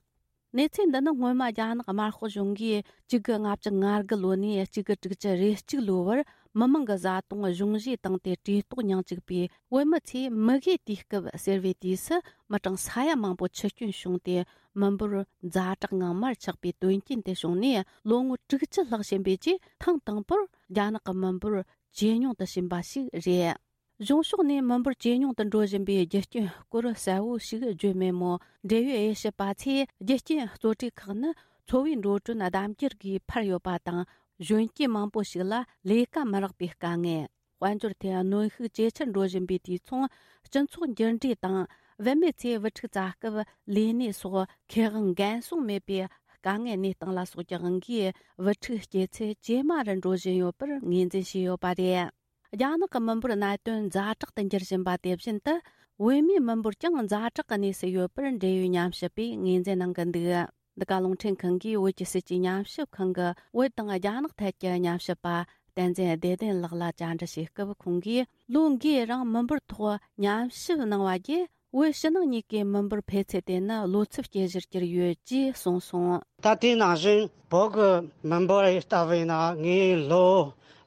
གནས་ཚུལ་འདི་ནི་སྔོན་མ་རྒྱ་ནག་དམར་ཤོག་གཞུང་གིས་གཅིག་དགུ་ལྔ་བཅུ་ང་དགུ་ལོ་ནས་གཅིག་དགུ་དྲུག་ཅུ་རེ་གཅིག་ལོའི་བར་མི་མང་གི་བཟའ་བཏུང་གཞུང་བཞེས་བཏང་སྟེ་བཀྲེས་ལྟོགས་མྱངས་བཅུག་པའི་བོད་མི་ཚོས་མུ་གེའི་དུས་སྐབས་ཟེར་བའི་དུས་སུ་མི་གྲངས་ས་ཡ་མང་པོ་འཆི་སྐྱོན་བྱུང་སྟེ། མི་འབོར་ཛ་དྲག་ངང་མར་ཆག་པའི་དོན་རྐྱེན་དེ་བྱུང་ནས་ལོ་ངོ་དྲུག་ཅུ་ལྷག་ཕྱིན་པའི་རྗེས། ཐེངས་དང་པོར་རྒྱ་ནག་གི་མི་འབོར་ཇེ་ཉུང་དུ་ཕྱིན་པ་ཞིག་རེད། གཞུང་ཕྱོགས་ནས་མི་འབོར་ཇེ་ཉུང་དུ་འགྲོ་བཞིན་པའི་རྒྱུ་རྐྱེན་སྐོར་གསལ་བོ་ཞིག་བརྗོད་མེད་མོད། འབྲེལ་ཡོད་དབྱེ་ཞིབ་པ་ཚོས་རྒྱུ་རྐྱེན་གཙོ་གྲས་ཁག་ནི་འཚོ་བའི་འགྲོ་གྲོན་ལྡབ་འགྱུར་གྱིས་འཕར་ཡོད་པ་དང་། གཞོན་སྐྱེས་མང་པོ་ཞིག་ལ་ལས་ཀ་མི་རག་པའི་དཀའ་ངལ། དཔལ་འབྱོར་ཐད་གནོན་ཤུགས་ཇེ་ཆེར་འགྲོ་བཞིན་པའི་དུས་མཚུངས། སྤྱི་ཚོགས་འགྱུར་འགྲོས་དང་། བུད་མེད་ཚོས་བུ་ཕྲུག་བཙའ་སྐབས་ལས་གནས་སོགས་ཁེ་དབང་འགན་སྲུང་མེད་པའི་དཀའ་ངལ་གནས་སྟངས་ལ་སོགས་ཀྱི་དབང་གིས། བུ་ཕྲུག་སྐྱེས་ཚད་ཇེ་དམའ་རུ་འགྲོ་བཞིན་ཡོད་པར་ངོས་འཛིན་བྱས་ཡོད་པ་རེད། རྒྱ་ནག་གི་མི་འབོར་གནད་དོན་ཛ་དྲག་ཏུ་འགྱུར་བཞིན་པ་དེ་བཞིན་དུ། བུད་མེད་མི་འབོར་ཀྱང་ཛ་དྲག་གི་གནས་སུ་ཡོད་པར་འབྲེལ་ཡོད་ཉམས་ཞིབ་པས་ངོས་འཛིན་གནང་གི་འདུག་འདི་ག་རླུང་འཕྲིན་ཁང་གིས་བོད་ཀྱི་སྲིད་ཇུས་ཉམས་ཞིབ་ཁང་གི་བོད་དང་རྒྱ་ནག་ཐད་ཀྱི་ཉམས་ཞིབ་པ་བསྟན་འཛིན་བདེ་ལྡན་ལགས་ལ་བཅར་འདྲི་བྱེད་སྐབས། ཁོང་གིས་ལོ་འགའི་རིང་མི་འབོར་ཐོག་ཉམས་ཞིབ་གནང་བ་བརྒྱུད། བོད་ཕྱི་ནང་གཉིས་ཀའི་མི་འབོར་འཕེལ་ཚད་དེ་ནི་ལོ་ཚབས་སྐྱེ་གཞིར་གྱུར་ཡོད་ཅེས་གསུངས་སོང་། ད་དེ་ནང་བཞིན་བོད་ཀྱི་མི་འབོར་ལྟ་བུ་ཡིན་ན། ངས་ལོ་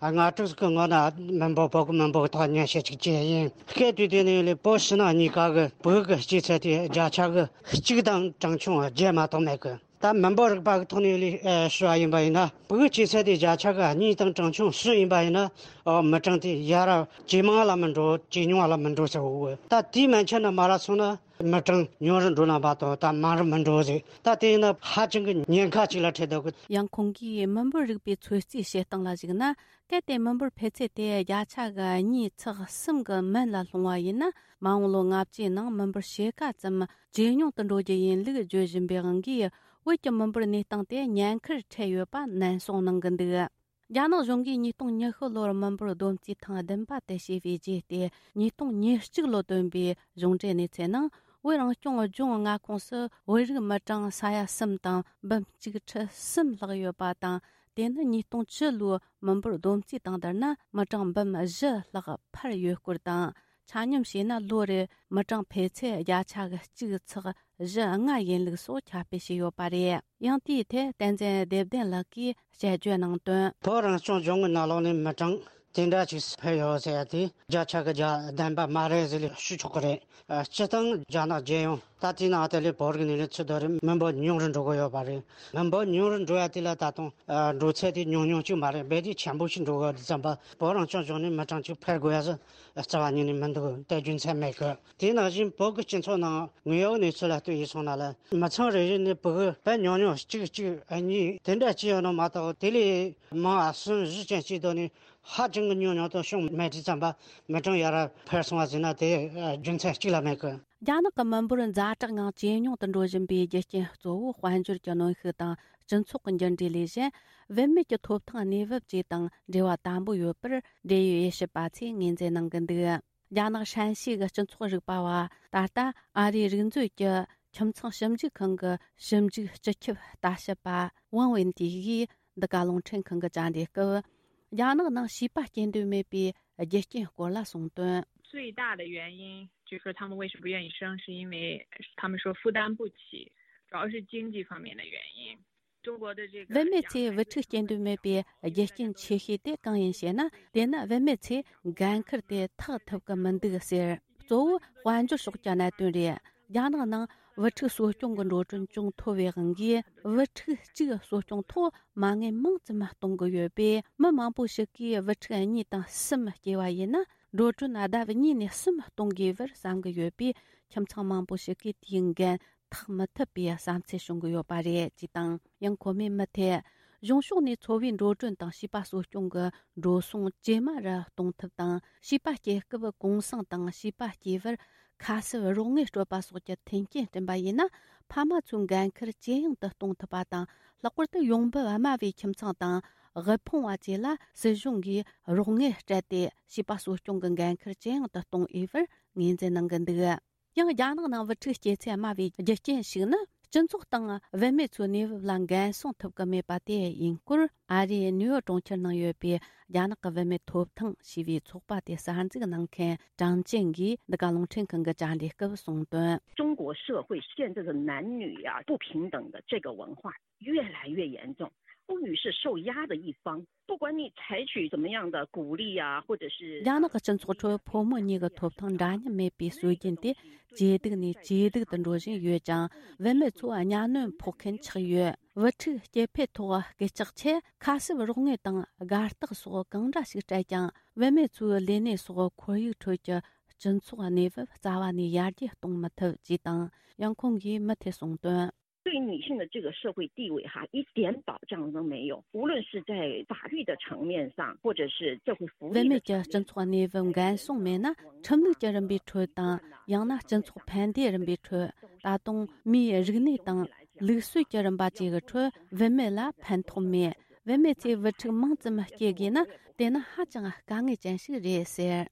ལྔ་དྲུག་གི་སྔོན་ན་མི་འབོར། བོད་ཀྱི་མི་འབོར་གྱི་ཐོག་ཉམས་ཞིབ་ཅིག་བྱས་ཡིན། སྐད་དུས་དེ་ནས་ལས་བོད་ཕྱི་ནང་གཉིས་ཀ་གི་བོད་ཀྱི་སྐྱེས་ཚད་དེ་བརྒྱ་ཆ་གི་གཅིག་དང་གྲངས་ཆུང་བརྒྱད་མ་གཏོགས་མེད་གི། ད་མི་འབོར་རིག་པ་གི་ཐོག་ནས་ལས་ཞུ་བ་ཡིན་པ་ཡིན་ན། བོད་སྐྱེས་ཚད་དེ་བརྒྱ་ཆ་གི་གཉིས་དང་གྲངས་ཆུང་བཞི་ཡིན་པ་ཡིན་ན། ཨོ། མི་གྲངས་དེ་ཡར་ཇེ་མང་ལ་མི་འགྲོ། ཇེ་ཉུང་ལ་མི་འགྲོ་ཟེར་བ། ད་དེ་མན་ཆད་ན་མ་རག་སོང་ན། མི་གྲངས་ཉུང་རུ་འགྲོ་ལ་བ་དང་། ད་མང་རུ་མི་འགྲོ་ཟེར། ད་དེ་ཡིན་ན་ཧ་ཅང་གི་ཉེན་ཁ་ཅིག་ལ་འཕྲད་འདུག་གི། ཡང་ཁོང་གིས་མི་འབོར་རིག་པའི་ཚོད་རྩིས་བྱེད་སྟངས་ལ་གཞིགས་ན། གལ་ཏེ་མི་འབོར་འཕེལ་ཚད་དེ་བརྒྱ་ཆ་གི་གཉིས་ཚེག་གསུམ་གྱི་མན་ལ་ལྷུང་བ་ཡིན་ན། མ་འོངས་ལོ་ལྔ་བཅུའི་ནང་མི་འབོར་ཕྱེད་ཀ་ཙམ་ཇེ་ཉུང་དུ་འགྲོ་རྒྱུ་ཡིན་ལུགས་བརྗོད་བཞིན་པའི་དབང་གིས། བོད་ཀྱི་མི་འབོར་གནས་སྟངས་དེ་ཉེན་ཁར་འཕྲད་ཡོད་པ་ནན་གསུངས་གནང་གི་འདུག་རྒྱ་ནག་གཞུང་གིས་ཉིས་སྟོང་ཉི་ཤུ་ལོར་མི་འབོར་བསྡོམས་རྩིས་ཐེངས་བདུན་པ་དེ་བྱས་པའི་རྗེས་ཏེ། ཉིས་སྟོང་ཉེར་གཅིག་ལོ་བཏོན་པའི་གཞུང་འབྲེལ་གནས་ཚུལ་ནང་། བོད་རང་སྐྱོང་ལྗོངས་མངའ་ཁོངས་སུ་བོད་རིགས་མི་གྲངས་ས་ཡ་གསུམ་དང་འབུམ་གཅིག་ཁྲི་གསུམ་ལྷག་ཡོད་པ་དང་། དེ་ནི་ཉིས་སྟོང་བཅུ་ལོའི་མི་འབོར་བསྡོམས་རྩིས་དང་བསྡུར་ན། མི་གྲངས་འབུམ་བཞི་ལྷག་འཕར་ཡོད་སྐོར་དང་། ཆ་སྙོམས་བྱས་ན། ལོ་རེར་མི་གྲངས་འཕེལ་ཚད་བརྒྱ་ཆ་གི་གཅིག་ཚེག་བཞི་ལྔ་ཡིན་ལུགས་སོགས་ཁྱབ་སྤེལ་བྱས་ཡོད་པ་རེད། ཡང་དེའི་ཐད་བསྟན་འཛིན་བདེ་ལྡན་ལགས་ཀྱིས་དཔྱད་བརྗོད་གནང་དོན། བོད་རང་སྐྱོང་ལྗོངས་ཀྱི་ནང་ལོགས་ནས་མི་གྲངས་དེ་འདྲ་ཅིག་འཕེལ་ཡོད་ཟེར་ཡ་དེ་བརྒྱ་ཆ་གི་བརྒྱ་ལྡན་པ་མ་རེད་ཟེར་ལས་ཞུ་ཆོག་གི་རེད། སྤྱིར་བཏང་རྒྱ་ནག་རྒྱལ་ཡོངས་ ད་ལྟའི་ནང་དེ་ལས་བོད་རིགས་ནས་ལས་ཚུར་དོ་རིམ་མི་འབོར་ཉུང་རུ་འགྲོ་གི་ཡོད་པ་རེད། མི་འབོར་ཉུང་རུ་འགྲོ་ཡ་དེ་ལ་ད་དུང་ཨ་འགྲོ་ཚད་དེ་ཉུང་ཉུང་ཅིག་མ་རེད། རྦད་དེ་ཆེན་པོ་ཞིག་འགྲོ་གི་ཡོད་དུས་ཙམ་པ། བོད་རང་སྐྱོང་ལྗོངས་ནས་མི་གྲངས་གཅིག་འཕར་དགོས་ཡ་ཟེར་རྩ་བ་ཉིད་ནས་མི་འདུག་དེ་རྒྱུ་མཚན་མེད་གི། དེ་ནང་བཞིན་བོད་ཀྱི་སྤྱི་ཚོགས་ནང་དངོས་ཡོད་གནས་ཚུལ་ལ་ལྟོས་ཡིན་སོང་ན་ལ། མི་ཚང་རེ་རེ་ནས་བུ་གུ་དཔེ་ཉུང་ཉུང་གཅིག་གཅིག་གཉིས་དེ་འདྲ་ཅིག་ཡོད་ནོ་མ་གཏོགས། དེ་ལས་མང་བ་གསུམ་བཞི་ཅན་ཅིག་དོ་ནས་ཧ་ཅང་གི་ཉུང་ཉུང་དུ་བྱུང་མེད་དུས་ཙམ་པ། མི་གྲངས་ཡར་འཕར་སོང་བ་ཟེར་ན་དེ་རྒྱུ་མཚན་གཅིག་ལ་མེད་གི། རྒྱ་ནག་གི་མི་འབོར་ཛ་དྲག་ངང་ཇེ་ཉུང་དུ་འགྲོ་བཞིན་པའི་རྒྱུ་རྐྱེན་གཙོ་བོ་དཔལ་འབྱོར་གྱི་གནོན་ཤུགས་དང་སྤྱི་ཚོགས་ཀྱི་འགྱུར་འགྲོས་ལས་གཞན། བུད་མེད་ཀྱི་ཐོབ་ཐང་གནས་བབ་བཅས་དང་འབྲེལ་བ་དམ་པོ་ཡོད་པར་འབྲེལ་ཡོད་དབྱེ་ཞིབ་པ་ཚོས་ངོས་འཛིན་གནང་གི་འདུག་རྒྱ་ནག་ཧྲན་ཞི་གི་སྤྱི་ཚོགས་རིག་པ་བ། ད་ལྟ་ཨ་རིའི་རིག་མཛོད་ཀྱི་ཁྱིམ་ཚང་ཞིབ་འཇུག་ཁང་གི་ཞིབ་འཇུག་སྤྱི་ཁྱབ་ལྟ་ཞིབ་པ་ཝང་ཝེན་ཏི་ཡིས་འདི་ག་རླུང་འཕྲིན་ཁང་གི་བཅར་འདྲི་སྐབས། རྒྱ་ནག་ནང་བྱིས་པ་སྐྱེ་འདོད་མེད་པའི་རྒྱུ་རྐྱེན་སྐོར་ལ་གསུངས་དོན། 最大的原因就是说他们为什么不愿意生，是因为他们说负担不起，主要是经济方面的原因。中国的这个 བུད་མེད་ཚོས་བུ་ཕྲུག་སྐྱེ་འདོད་མེད་པའི་རྒྱུ་རྐྱེན་ཆེ་ཤོས་དེ་གང་ཡིན་ཞེ་ན། དེ་ནི་བུད་མེད་ཚོས་འགན་འཁུར་དེ་ཐེག་ཐུབ་ཀྱི་མི་འདུག་ཟེར། གཙོ་བོ་དཔལ་འབྱོར་ཕྱོགས་ཀྱི་གནད་དོན་རེད། རྒྱ་ནག་ནང་བུ་ཕྲུག་གསོ་སྐྱོང་གི་འགྲོ་གྲོན་ཅུང་མཐོ་བའི་དབང་གིས། བུ་ཕྲུག་གཅིག་གསོ་སྐྱོང་ཐོག་མ་དངུལ་མང་ཙམ་གཏོང་གི་ཡོད་པས། མི་མང་པོ་ཞིག་གིས་བུ་ཕྲུག་གཉིས་དང་གསུམ་སྐྱེས་པ་ཡིན་ན། འགྲོ་གྲོན་ལྡབ་གཉིས་ནས་གསུམ་གཏོང་དགོས་པར་བསམ་གྱི་ཡོད་པས། ཁྱིམ་ཚང་མང་པོ་ཞིག་གིས་དེའི་འགན་འཐག་མི་ཐུབ་པའི་བསམ་ཚུལ་བྱུང་གི་ཡོད་པ་རེད་ཅེས་དང་། ཡང་ཁོ་མོས་མུ་མཐུད། གཞུང་ཕྱོགས་ནས་འཚོ་བའི་འགྲོ་གྲོན་དང་བྱིས་པ་གསོ་སྐྱོང་གི་འགྲོ་སོང་ཇེ་དམའ་རུ་གཏོང་ཐབས་དང་། བྱིས་པ་སྐྱེ་སྐབས་གུང་སེང་དང་བྱིས་པ་སྐྱེས་པར་ཁ་གསབ་རོགས་དངུལ་སྤྲོད་པ་སོགས་ཀྱི་མཐུན་རྐྱེན་བསྐྲུན་པ་ཡིན་ན། ཕ་མ་ཚོའི་འགན་འཁུར་ཇེ་ཡང་དུ་གཏོང་ཐུབ་པ་དང་། ལྷག་པར་དུ་ཡོང་འབབ་དམའ་བའི་ཁྱིམ་ཚང་དང་དབུལ་ཕོངས་པ་བཅས་ལ་སྲིད་གཞུང་གིས་རོགས་དངུལ་སྤྲད་དེ། བྱིས་པ་གསོ་སྐྱོང་གི་འགན་འཁུར་ཇེ་ཡང་དུ་གཏོང་འོས་པར་ངོས་འཛིན་གནང་གི་འདུག་ཡང་རྒྱ་ནག་ནང་བུ་ཕྲུག་སྐྱེ་ཚད་དམའ་བའི་རྒྱུ་རྐྱེན་ཞིག་ནི། སྤྱི་ཚོགས་དང་བུད་མེད་ཚོའི་གནས་བབ་ལ་འགན་སྲུང་ཐུབ་ཀྱི་མེད་པ་དེ་ཡིན་སྐོར། ཨ་རིའི་ནིའུ་ཡོག་གྲོང་ཁྱེར་ནང་ཡོད་པའི་རྒྱ་ནག་གི་བུད་མེད་ཐོབ་ཐང་ཞེས་པའི་ཚོགས་པ་དེ་གསར་འཛུགས་གནང་མཁན་ཀྲང་ཅན་གྱིས་འདི་ག་རླུང་འཕྲིན་ཁང་གི་བཅར་འདྲི་སྐབས་གསུངས་དོན། 中国社会现在的男女呀，不平等的这个文化越来越严重，妇女是受压的一方。不管你采取怎么样的鼓励啊，或者是 རྒྱ་ནག་གི་སྤྱི་ཚོགས་ཁྲོད་ཕོ་མོ་གཉིས་ཀྱི་ཐོབ་ཐང་འདྲ་མཉམ་མེད་པའི་སྲོལ་རྒྱུན་དེ་ཇེ་སྡུག་ནས་ཇེ་སྡུག་ཏུ་འགྲོ་བཞིན་ཡོད་ཅིང་། བུད་མེད་ཚོ་གཉའ་གནོན་ཕོག་མཁན་ཆགས་ཡོད། བུ་ཕྲུག་སྐྱེ་འཕེལ་ཐོག་སྐད་ཆག་ཆེད་ཁ་གསབ་རོགས་དངུལ་དང་དགའ་རྟགས་སོགས་གང་འདྲ་ཞིག་སྤྲད་ཀྱང་། བུད་མེད་ཚོའི་ལས་གནས་སོགས་ཁོར་ཡུག་ཁྲོད་ཀྱི་སྤྱི་ཚོགས་གནས་བབ་རྩ་བ་ནས་ཡར་རྒྱས་གཏོང་མི་ཐུབ་ཅེས་དང་། ཡང་ཁོང་གིས་མུ་མཐུད་གསུངས་དོན། 对女性的这个社会地位哈，一点保障都没有。无论是在法律的层面上，或者是社会福利的层面上， བུད་མེད་ཀྱི་སྤྱི་ཚོགས་གནས་བབ་འགན་སྲུང་མེད་ན། ཁྲིམས་ལུགས་ཀྱི་རིམ་པའི་ཁྲོད་དང་། ཡང་ན་སྤྱི་ཚོགས་ཕན་བདེའི་རིམ་པའི་ཁྲོད། ད་དུང་མིའི་རིག་གནས་དང་ལུགས་སྲོལ་གྱི་རིམ་པ་བཅས་ཀྱི་ཁྲོད་བུད་མེད་ལ་ཕན་ཐོགས་མེད། བུད་མེད་ཚོས་བུ་ཕྲུག་མང་ཙམ་སྐྱེ་དགོས་ན། དེ་ནི་ཧ་ཅང་དཀའ་ངལ་ཅན་ཞིག་རེད་ཟེར།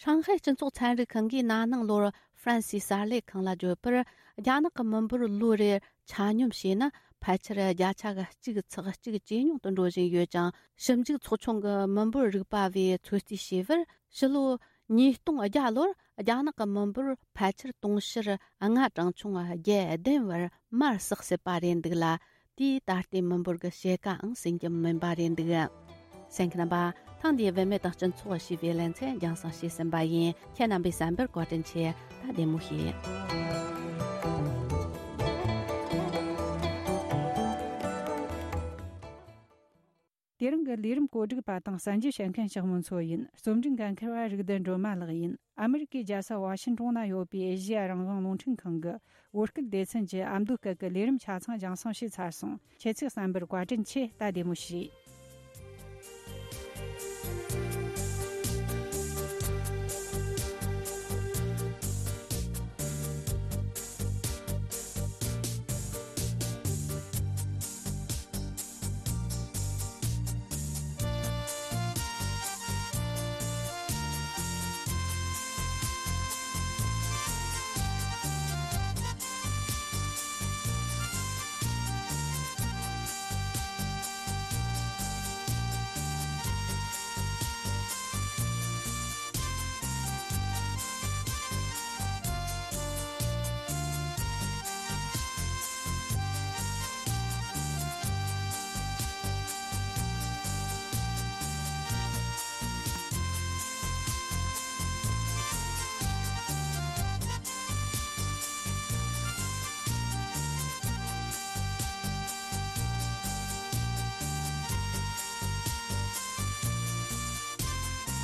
ཧྲང་ཧའེ་སྤྱི་ཚོགས་ཚན་རིག་ཁང་གིས་ན་ནིང་ལོར་ཧྥ་རན་སིའི་གསར་ལས་ཁང་ལ་བརྗོད་པར། རྒྱ་ནག་གི་མི་འབོར་ལོ་རེར་ཆ་སྙོམས་བྱས་ན། ཕལ་ཆེར་བརྒྱ་ཆ་གཅིག་ཚེག་གཅིག་ཇེ་ཉུང་དུ་འགྲོ་བཞིན་ཡོད་ཅིང་། ཞིབ་འཇུག་ཚོགས་ཆུང་གི་མི་འབོར་རིག་པ་བས་ཚོད་རྩིས་བྱས་པར། ཕྱི་ལོ་ཉིས་སྟོང་བརྒྱ་ལོར་རྒྱ་ནག་གི་མི་འབོར་ཕལ་ཆེར་དུང་ཕྱུར་ལྔ་གྲངས་ཆུང་བརྒྱད་ལྡན་བར་མར་ཟགས་སྲིད་པ་རེད་འདུག་ལ། དེས་ད་ལྟའི་མི་འབོར་གྱི་ཕྱེད་ཀའང་ཟིན་རྒྱུ་མིན་པ་རེད་འདུག་གསན་མཁན་རྣམ་པ། ཐེངས་འདིའི་བུད་མེད་དང་སྤྱི་ཚོགས་ཞེས་པའི་ལེ་ཚན་རྒྱང་སྲིང་བྱས་ཟིན་པ་ཡིན། ཁྱེད་རྣམ་པའི་གསན་པར་བཀའ་དྲིན་ཆེ། ད་བདེ་མོ་བྱོས། དེ་རིང་གི་ལས་རིམ་བཀོད་སྒྲིག་པ་དང་གསར་འགྱུར་བཤད་མཁན་ཞག་མོ་མཚོ་ཡིན། རྩོམ་སྒྲིག་འགན་འཁུར་བ་རིག་ལྡན་སྒྲོལ་མ་ལགས་ཡིན། ཨ་མི་རི་ཀའི་རྒྱལ་ས་ཝ་ཤིན་ཀྲོང་ན་ཡོད་པའི་ཨེ་ཤེ་ཡ་རང་དབང་རླུང་འཕྲིན་ཁང་གི་བོད་སྐད་སྡེ་ཚན་གྱི་ཨ་མདོ་སྐད་ཀྱི་ལས་རིམ་ཆ་ཚང་རྒྱང་སྲིང་བྱས་ཚར་སོང་། ཁྱེད་ཚོས་གསན་པར་བཀའ་དྲིན་ཆེ། ད་བདེ་མོ་བྱོས།